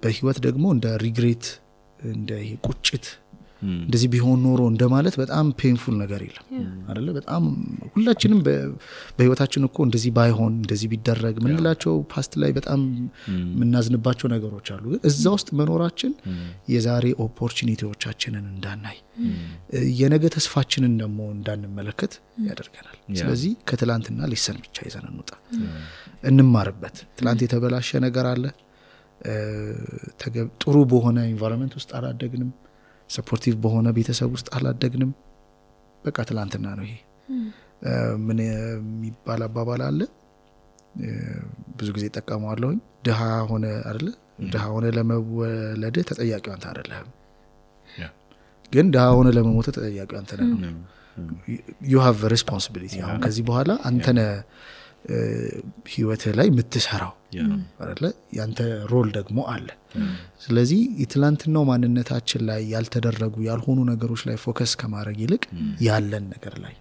በህይወት ደግሞ እንደ ሪግሬት እንደ ቁጭት እንደዚህ ቢሆን ኖሮ እንደማለት በጣም ፔንፉል ነገር የለም አይደለ? በጣም ሁላችንም በህይወታችን እኮ እንደዚህ ባይሆን እንደዚህ ቢደረግ ምንላቸው ፓስት ላይ በጣም ምናዝንባቸው ነገሮች አሉ። ግን እዛ ውስጥ መኖራችን የዛሬ ኦፖርቹኒቲዎቻችንን እንዳናይ የነገ ተስፋችንን ደግሞ እንዳንመለከት ያደርገናል። ስለዚህ ከትላንትና ሊሰን ብቻ ይዘን እንውጣ፣ እንማርበት። ትላንት የተበላሸ ነገር አለ፣ ጥሩ በሆነ ኢንቫይሮንመንት ውስጥ አላደግንም፣ ሰፖርቲቭ በሆነ ቤተሰብ ውስጥ አላደግንም። በቃ ትላንትና ነው ይሄ። ምን የሚባል አባባል አለ፣ ብዙ ጊዜ ተጠቀመዋለሁኝ። ድሃ ሆነ አይደለ? ድሃ ሆነ ለመወለድ ተጠያቂው አንተ አይደለህም፣ ግን ድሃ ሆነ ለመሞት ተጠያቂው አንተ ነህ። you have a responsibility። አሁን ከዚህ በኋላ አንተ ነህ ህይወት ላይ የምትሰራው አይደለ? ያንተ ሮል ደግሞ አለ። ስለዚህ የትላንትናው ማንነታችን ላይ ያልተደረጉ ያልሆኑ ነገሮች ላይ ፎከስ ከማድረግ ይልቅ ያለን ነገር ላይ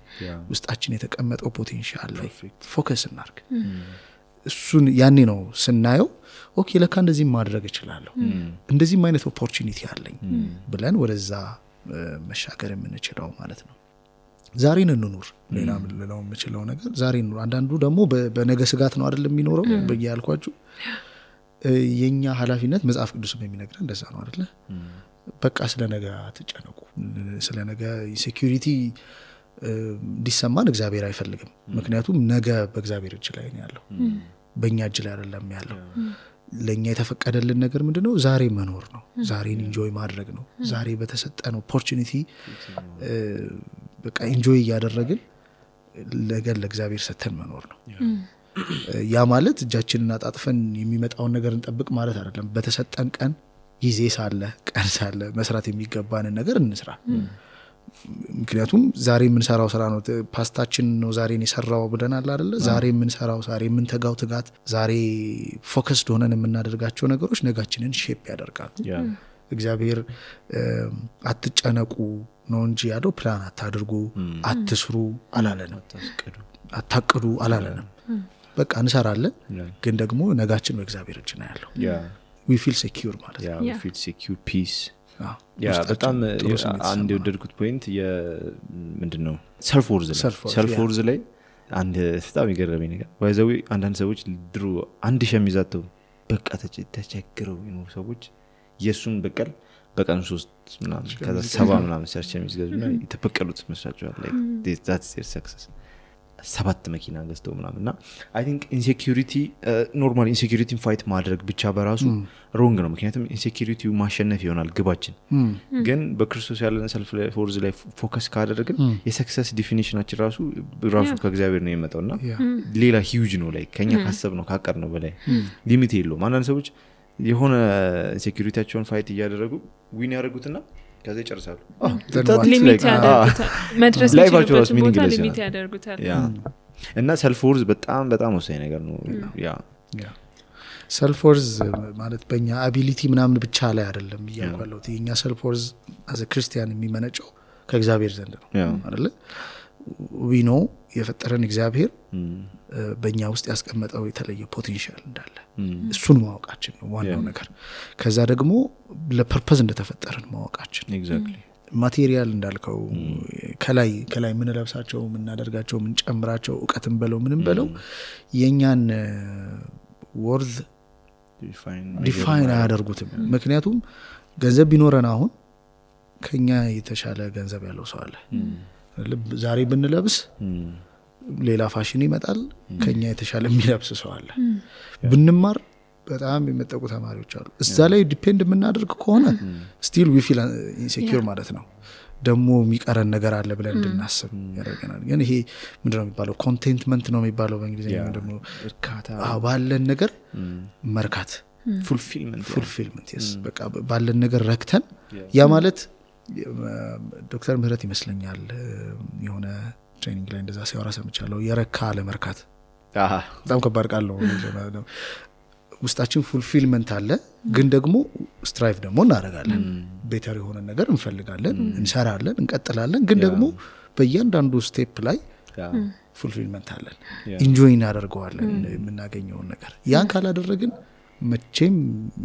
ውስጣችን የተቀመጠው ፖቴንሻል ላይ ፎከስ እናርግ። እሱን ያኔ ነው ስናየው ኦኬ ለካ እንደዚህ ማድረግ እችላለሁ፣ እንደዚህም አይነት ኦፖርቹኒቲ አለኝ ብለን ወደዛ መሻገር የምንችለው ማለት ነው። ዛሬን እንኑር። ሌላ ምን ልለው የምችለው ነገር ዛሬን እንኑር። አንዳንዱ ደግሞ በነገ ስጋት ነው አይደል የሚኖረው። በያልኳችሁ የኛ ኃላፊነት መጽሐፍ ቅዱስም የሚነግረን እንደዛ ነው አይደል? በቃ ስለ ነገ አትጨነቁ። ስለ ነገ ሴኩሪቲ እንዲሰማን እግዚአብሔር አይፈልግም። ምክንያቱም ነገ በእግዚአብሔር እጅ ላይ ነው ያለው፣ በእኛ እጅ ላይ አይደለም ያለው። ለኛ የተፈቀደልን ነገር ምንድነው? ዛሬ መኖር ነው። ዛሬን ኢንጆይ ማድረግ ነው። ዛሬ በተሰጠን ኦፖርቹኒቲ በቃ ኢንጆይ ያደረግን ለገል ለእግዚአብሔር ሰተን መኖር ነው ያ ማለት እጃችንን አጣጥፈን የሚመጣውን ነገር እንጠብቅ ማለት አይደለም በተሰጠን ቀን ጊዜ ሳለ ቀን ሳለ መስራት የሚገባንን ነገር እንስራ ምክንያቱም ዛሬ የምንሰራው ስራ ነው ፓስታችን ነው ዛሬን የሰራው ብለናል አይደለ ዛሬ የምንሰራው ዛሬ የምንተጋው ትጋት ዛሬ ፎከስድ ሆነን የምናደርጋቸው ነገሮች ነጋችንን ሼፕ ያደርጋሉ እግዚአብሔር አትጨነቁ ነው እንጂ ያለው ፕላን አታድርጉ አትስሩ አላለንም አታቅዱ አላለንም በቃ እንሰራለን ግን ደግሞ ነጋችን በእግዚአብሔር እጅ ነው ያለው we feel secure ማለት ነው we feel secure peace በጣም አንድ የወደድኩት ፖይንት ምንድነው ሰልፍ ወርዝ ላይ አንድ በጣም ይገርመኝ ነገር ባይዘው አንዳንድ ሰዎች ድሮ አንድ ሸሚዛቸው በቃ ተቸግረው ነው ሰዎች የሱን በቀል በቀን 3 ምናምን ከዛ 7 ምናምን ሰርች የሚገዙና የተፈቀሉት መስራቸዋል like that's their success 7 መኪና ገዝተው ምናምንና I think insecurity normal insecurity fight ማድረግ ብቻ በራሱ wrong ነው ምክንያቱም insecurity ማሸነፍ ይሆናል ግባችን ግን በክርስቶስ ያለን ሰልፍ ፎርዝ ላይ ፎከስ ካደረግን የሰክሰስ ዲፊኒሽናችን ራሱ ከእግዚአብሔር ነው የመጣውና ሌላ huge ነው like ከኛ ካሰብ ነው ካቀር ነው በላይ ሊሚት የለውም አንዳንድ ሰዎች የሆነ ኢንሴኩሪቲያቸውን ፋይት ያደረጉ ዊን ያደርጉትና ከዛ ይጨርሳሉ ሊሚት ያደርጉታል መድረስ ይችላል ሊሚት ያደርጉታል እና ሰልፍ ወርዝ በጣም በጣም ወሳኝ ነገር ነው ያ ሰልፍ ወርዝ ማለት በእኛ አቢሊቲ ምናምን ብቻ ላይ አይደለም ይያልኳለው የኛ ሰልፍ ወርዝ as a ክርስቲያን የሚመነጨው ከእግዚአብሔር ዘንድ ነው አይደል we know የፈጠረን እግዚአብሔር በእኛ ውስጥ ያስቀመጠው የተለየ ፖቴንሻል እንዳለ እሱን ማወቃችን ነው ዋናው ነገር ከዛ ደግሞ ለፐርፐዝ እንደተፈጠረን ማወቃችን ኤግዛክትሊ ማቴሪያል እንዳልከው ከላይ ምን ለብሳቸው ምን እናደርጋቸው ምን ጨምራቸው ዕውቀትን በለው ምንም በለው የኛን ወርዝ ዲፋይን አያደርጉትም ምክንያቱም ገንዘብ ቢኖረን አሁን ከኛ የተሻለ ገንዘብ ያለው ሰው አለ ዛሬ ብንለብስ ሌላ ፋሽን ይመጣል ከኛ የተሻለ የሚለብስ ሰው አለ ብንማር በጣም የመጠቁ ተማሪዎች አሉ እዛ ላይ ዲፔንድ የምናደርግ ከሆነ still we feel insecure ማለት ነው ደግሞ የሚቀረን ነገር አለ ብለን እንድናስብ ያደርገናል ግን ይሄ ምንድነው የሚባለው ኮንቴንትመንት ነው የሚባለው በእንግሊዝኛ ደግሞ እርካታ ባለን ነገር መርካት fulfillment yes በቃ ባለን ነገር ረክተን ያ ማለት ዶክተር ምህረት ይመስለኛል የሆነ ትሬኒንግ ላይ እንደዛ ሲያወራ ሰምቻለሁ የረካ ለመርካት በጣም ከባድ ቃል ነው ውስጣችን ፉልፊልመንት አለ ግን ደግሞ ስትራይቭ ደግሞ እናደርጋለን ቤተር የሆነ ነገር እንፈልጋለን እንሰራለን እንቀጥላለን ግን ደግሞ በእያንዳንዱ ስቴፕ ላይ ፉልፊልመንት አለን ኢንጆይ እናደርገዋለን የምናገኘውን ነገር ያን ካላደረግን መቼም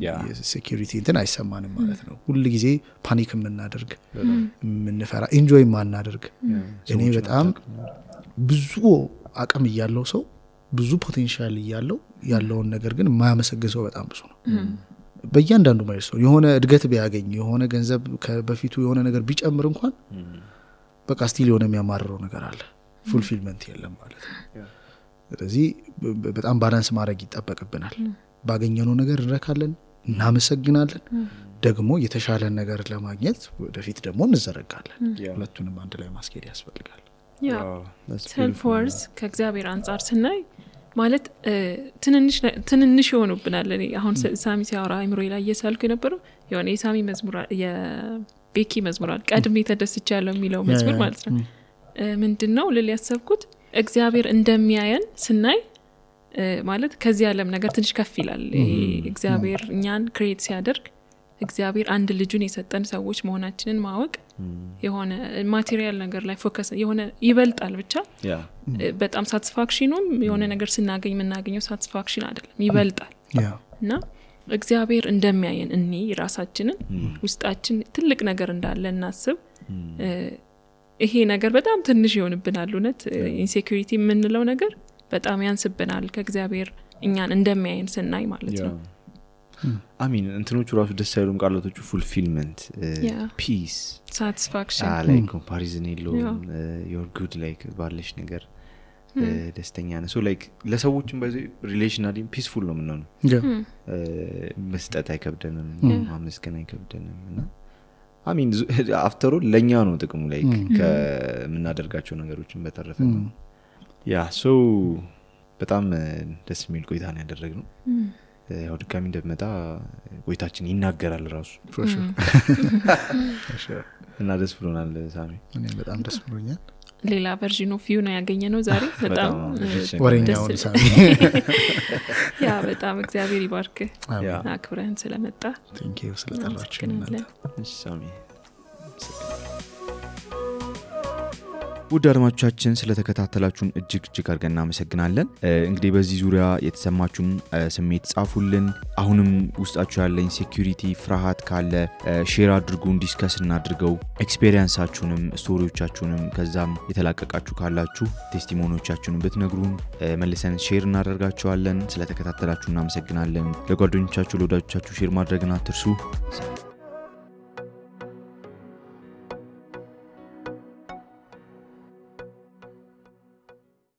የሴኩሪቲ እንትን አይሰማንም ማለት ነው ሁሉ ጊዜ ፓኒክ የምናደርግ የምንፈራ ኢንጆይ ማናደርግ እኔ በጣም ብዙ አቅም ያለው ሰው ብዙ ፖቴንሻል ያለውን ነገር ግን ማያመሰግን ሰው በጣም ብዙ ነው በእያንዳንዱ ማለት ነው የሆነ እድገት ቢያገኝ የሆነ ገንዘብ በፊቱ የሆነ ነገር ቢጨምር እንኳን በቃ ስቲል የሆነ የሚያማርረው ነገር አለ ፉልፊልመንት የለም ማለት ነው ስለዚህ በጣም ባላንስ ማድረግ ይጠበቅብናል ባገኘነው ነገር እንረካለን እናመሰግናለን ደግሞ የተሻለ ነገር ለማግኘት ወደፊት ደግሞ እንዘረጋለን ሁለቱንም አንድ ላይ ማስኬድ ያስፈልጋል ያ ሰልፍ ወርዝ ከእግዚአብሔር አንፃር ስናይ ማለት ትንንሽ ይሆኑብናል አሁን ሳሚ ሲያወራ አይምሮዬ ላይ እየሳልኩ የነበረው የሆነ የሳሚ መዝሙር የቤኪ መዝሙር ቀድሜ ተደስቻለሁ የሚለው መዝሙር ማለት ነው ምንድነው ልል ያሰብኩት እግዚአብሔር እንደሚያየን ስናይ ማለት ከዚህ ዓለም ነገር ትንሽ ከፍ ይላል እግዚአብሔር እኛን ክሬት ሲያደርግ እግዚአብሔር አንድ ልጁን የሰጠን ሰዎች መሆናችንን ማወቅ የሆነ ማቴሪያል ነገር ላይ ፎከስ የሆነ ይበልጣል ብቻ በጣም ሳቲስፋክሽኑም የሆነ ነገር ስናገኝ የምናገኘው ሳቲስፋክሽን አይደለም ይበልጣል እና እግዚአብሔር እንደሚያየን እኔ ራሳችንን ውስጣችን ትልቅ ነገር እንዳለ እናስብ ይሄ ነገር በጣም ትንሽ ይሆንብናል እውነት ኢንሴኩሪቲ የምንለው ነገር በጣም ያንስብናል ከእግዚአብሔር እኛን እንደሚያየን ስናይ ማለት ነው አሚን እንትኖቹ ራሱ ደስ አይሉም ቃላቶቹ fulfillment peace satisfaction like comparison የለውም you're good like ባለሽ ነገር ደስተኛ ነህ so like ለሰዎችም በዚህ ሪሌሽናሊ ፒስፉል ነው ምንሆነው መስጠት አይከብደንም ማመስገን አይከብደንም እና አሚን አፍተሩ ለኛ ነው ጥቅሙ ላይ ከምናደርጋቸው ነገሮችን በተረፈ ነው ያ ሶ በጣም ደስ የሚል ቆይታ ነው ያደረግነው ያው ድጋሚ እንደመጣ ቆይታችን ይናገራል ራሱ እና ደስ ብሎናል ሳሚ እኔ በጣም ደስ ብሎኛል ሌላ ቨርዥን ኦፍ ዩ ነው ያገኘነው ዛሬ በጣም ወሬኛው ሳሚ ያ በጣም እግዚአብሔር ይባርክ አክብረን ስለመጣ ቴንክ ዩ ስለጠራችሁኝ እሺ ሳሚ ውድ አድማጮቻችን ስለተከታተላችሁን እጅግ አድርገን እናመሰግናለን እንግዲህ በዚህ ዙሪያ የተሰማችሁን ስሜት ጻፉልን አሁንም ውስጣችሁ ያለ ኢንሴኩሪቲ ፍርሃት ካለ ሼር አድርጉን ዲስከስ እናድርገው ኤክስፒሪየንሳችሁንም ስቶሪዎቻችሁንም ከዛም የተላቀቃችሁ ካላችሁ ቴስቲሞኒዎቻችሁን ብትነግሩን መልሰን ሼር እናደርጋቸዋለን ስለተከታተላችሁ እናመሰግናለን ለጓደኞቻችሁ ለወዳጆቻችሁ ሼር ማድረግን አትርሱ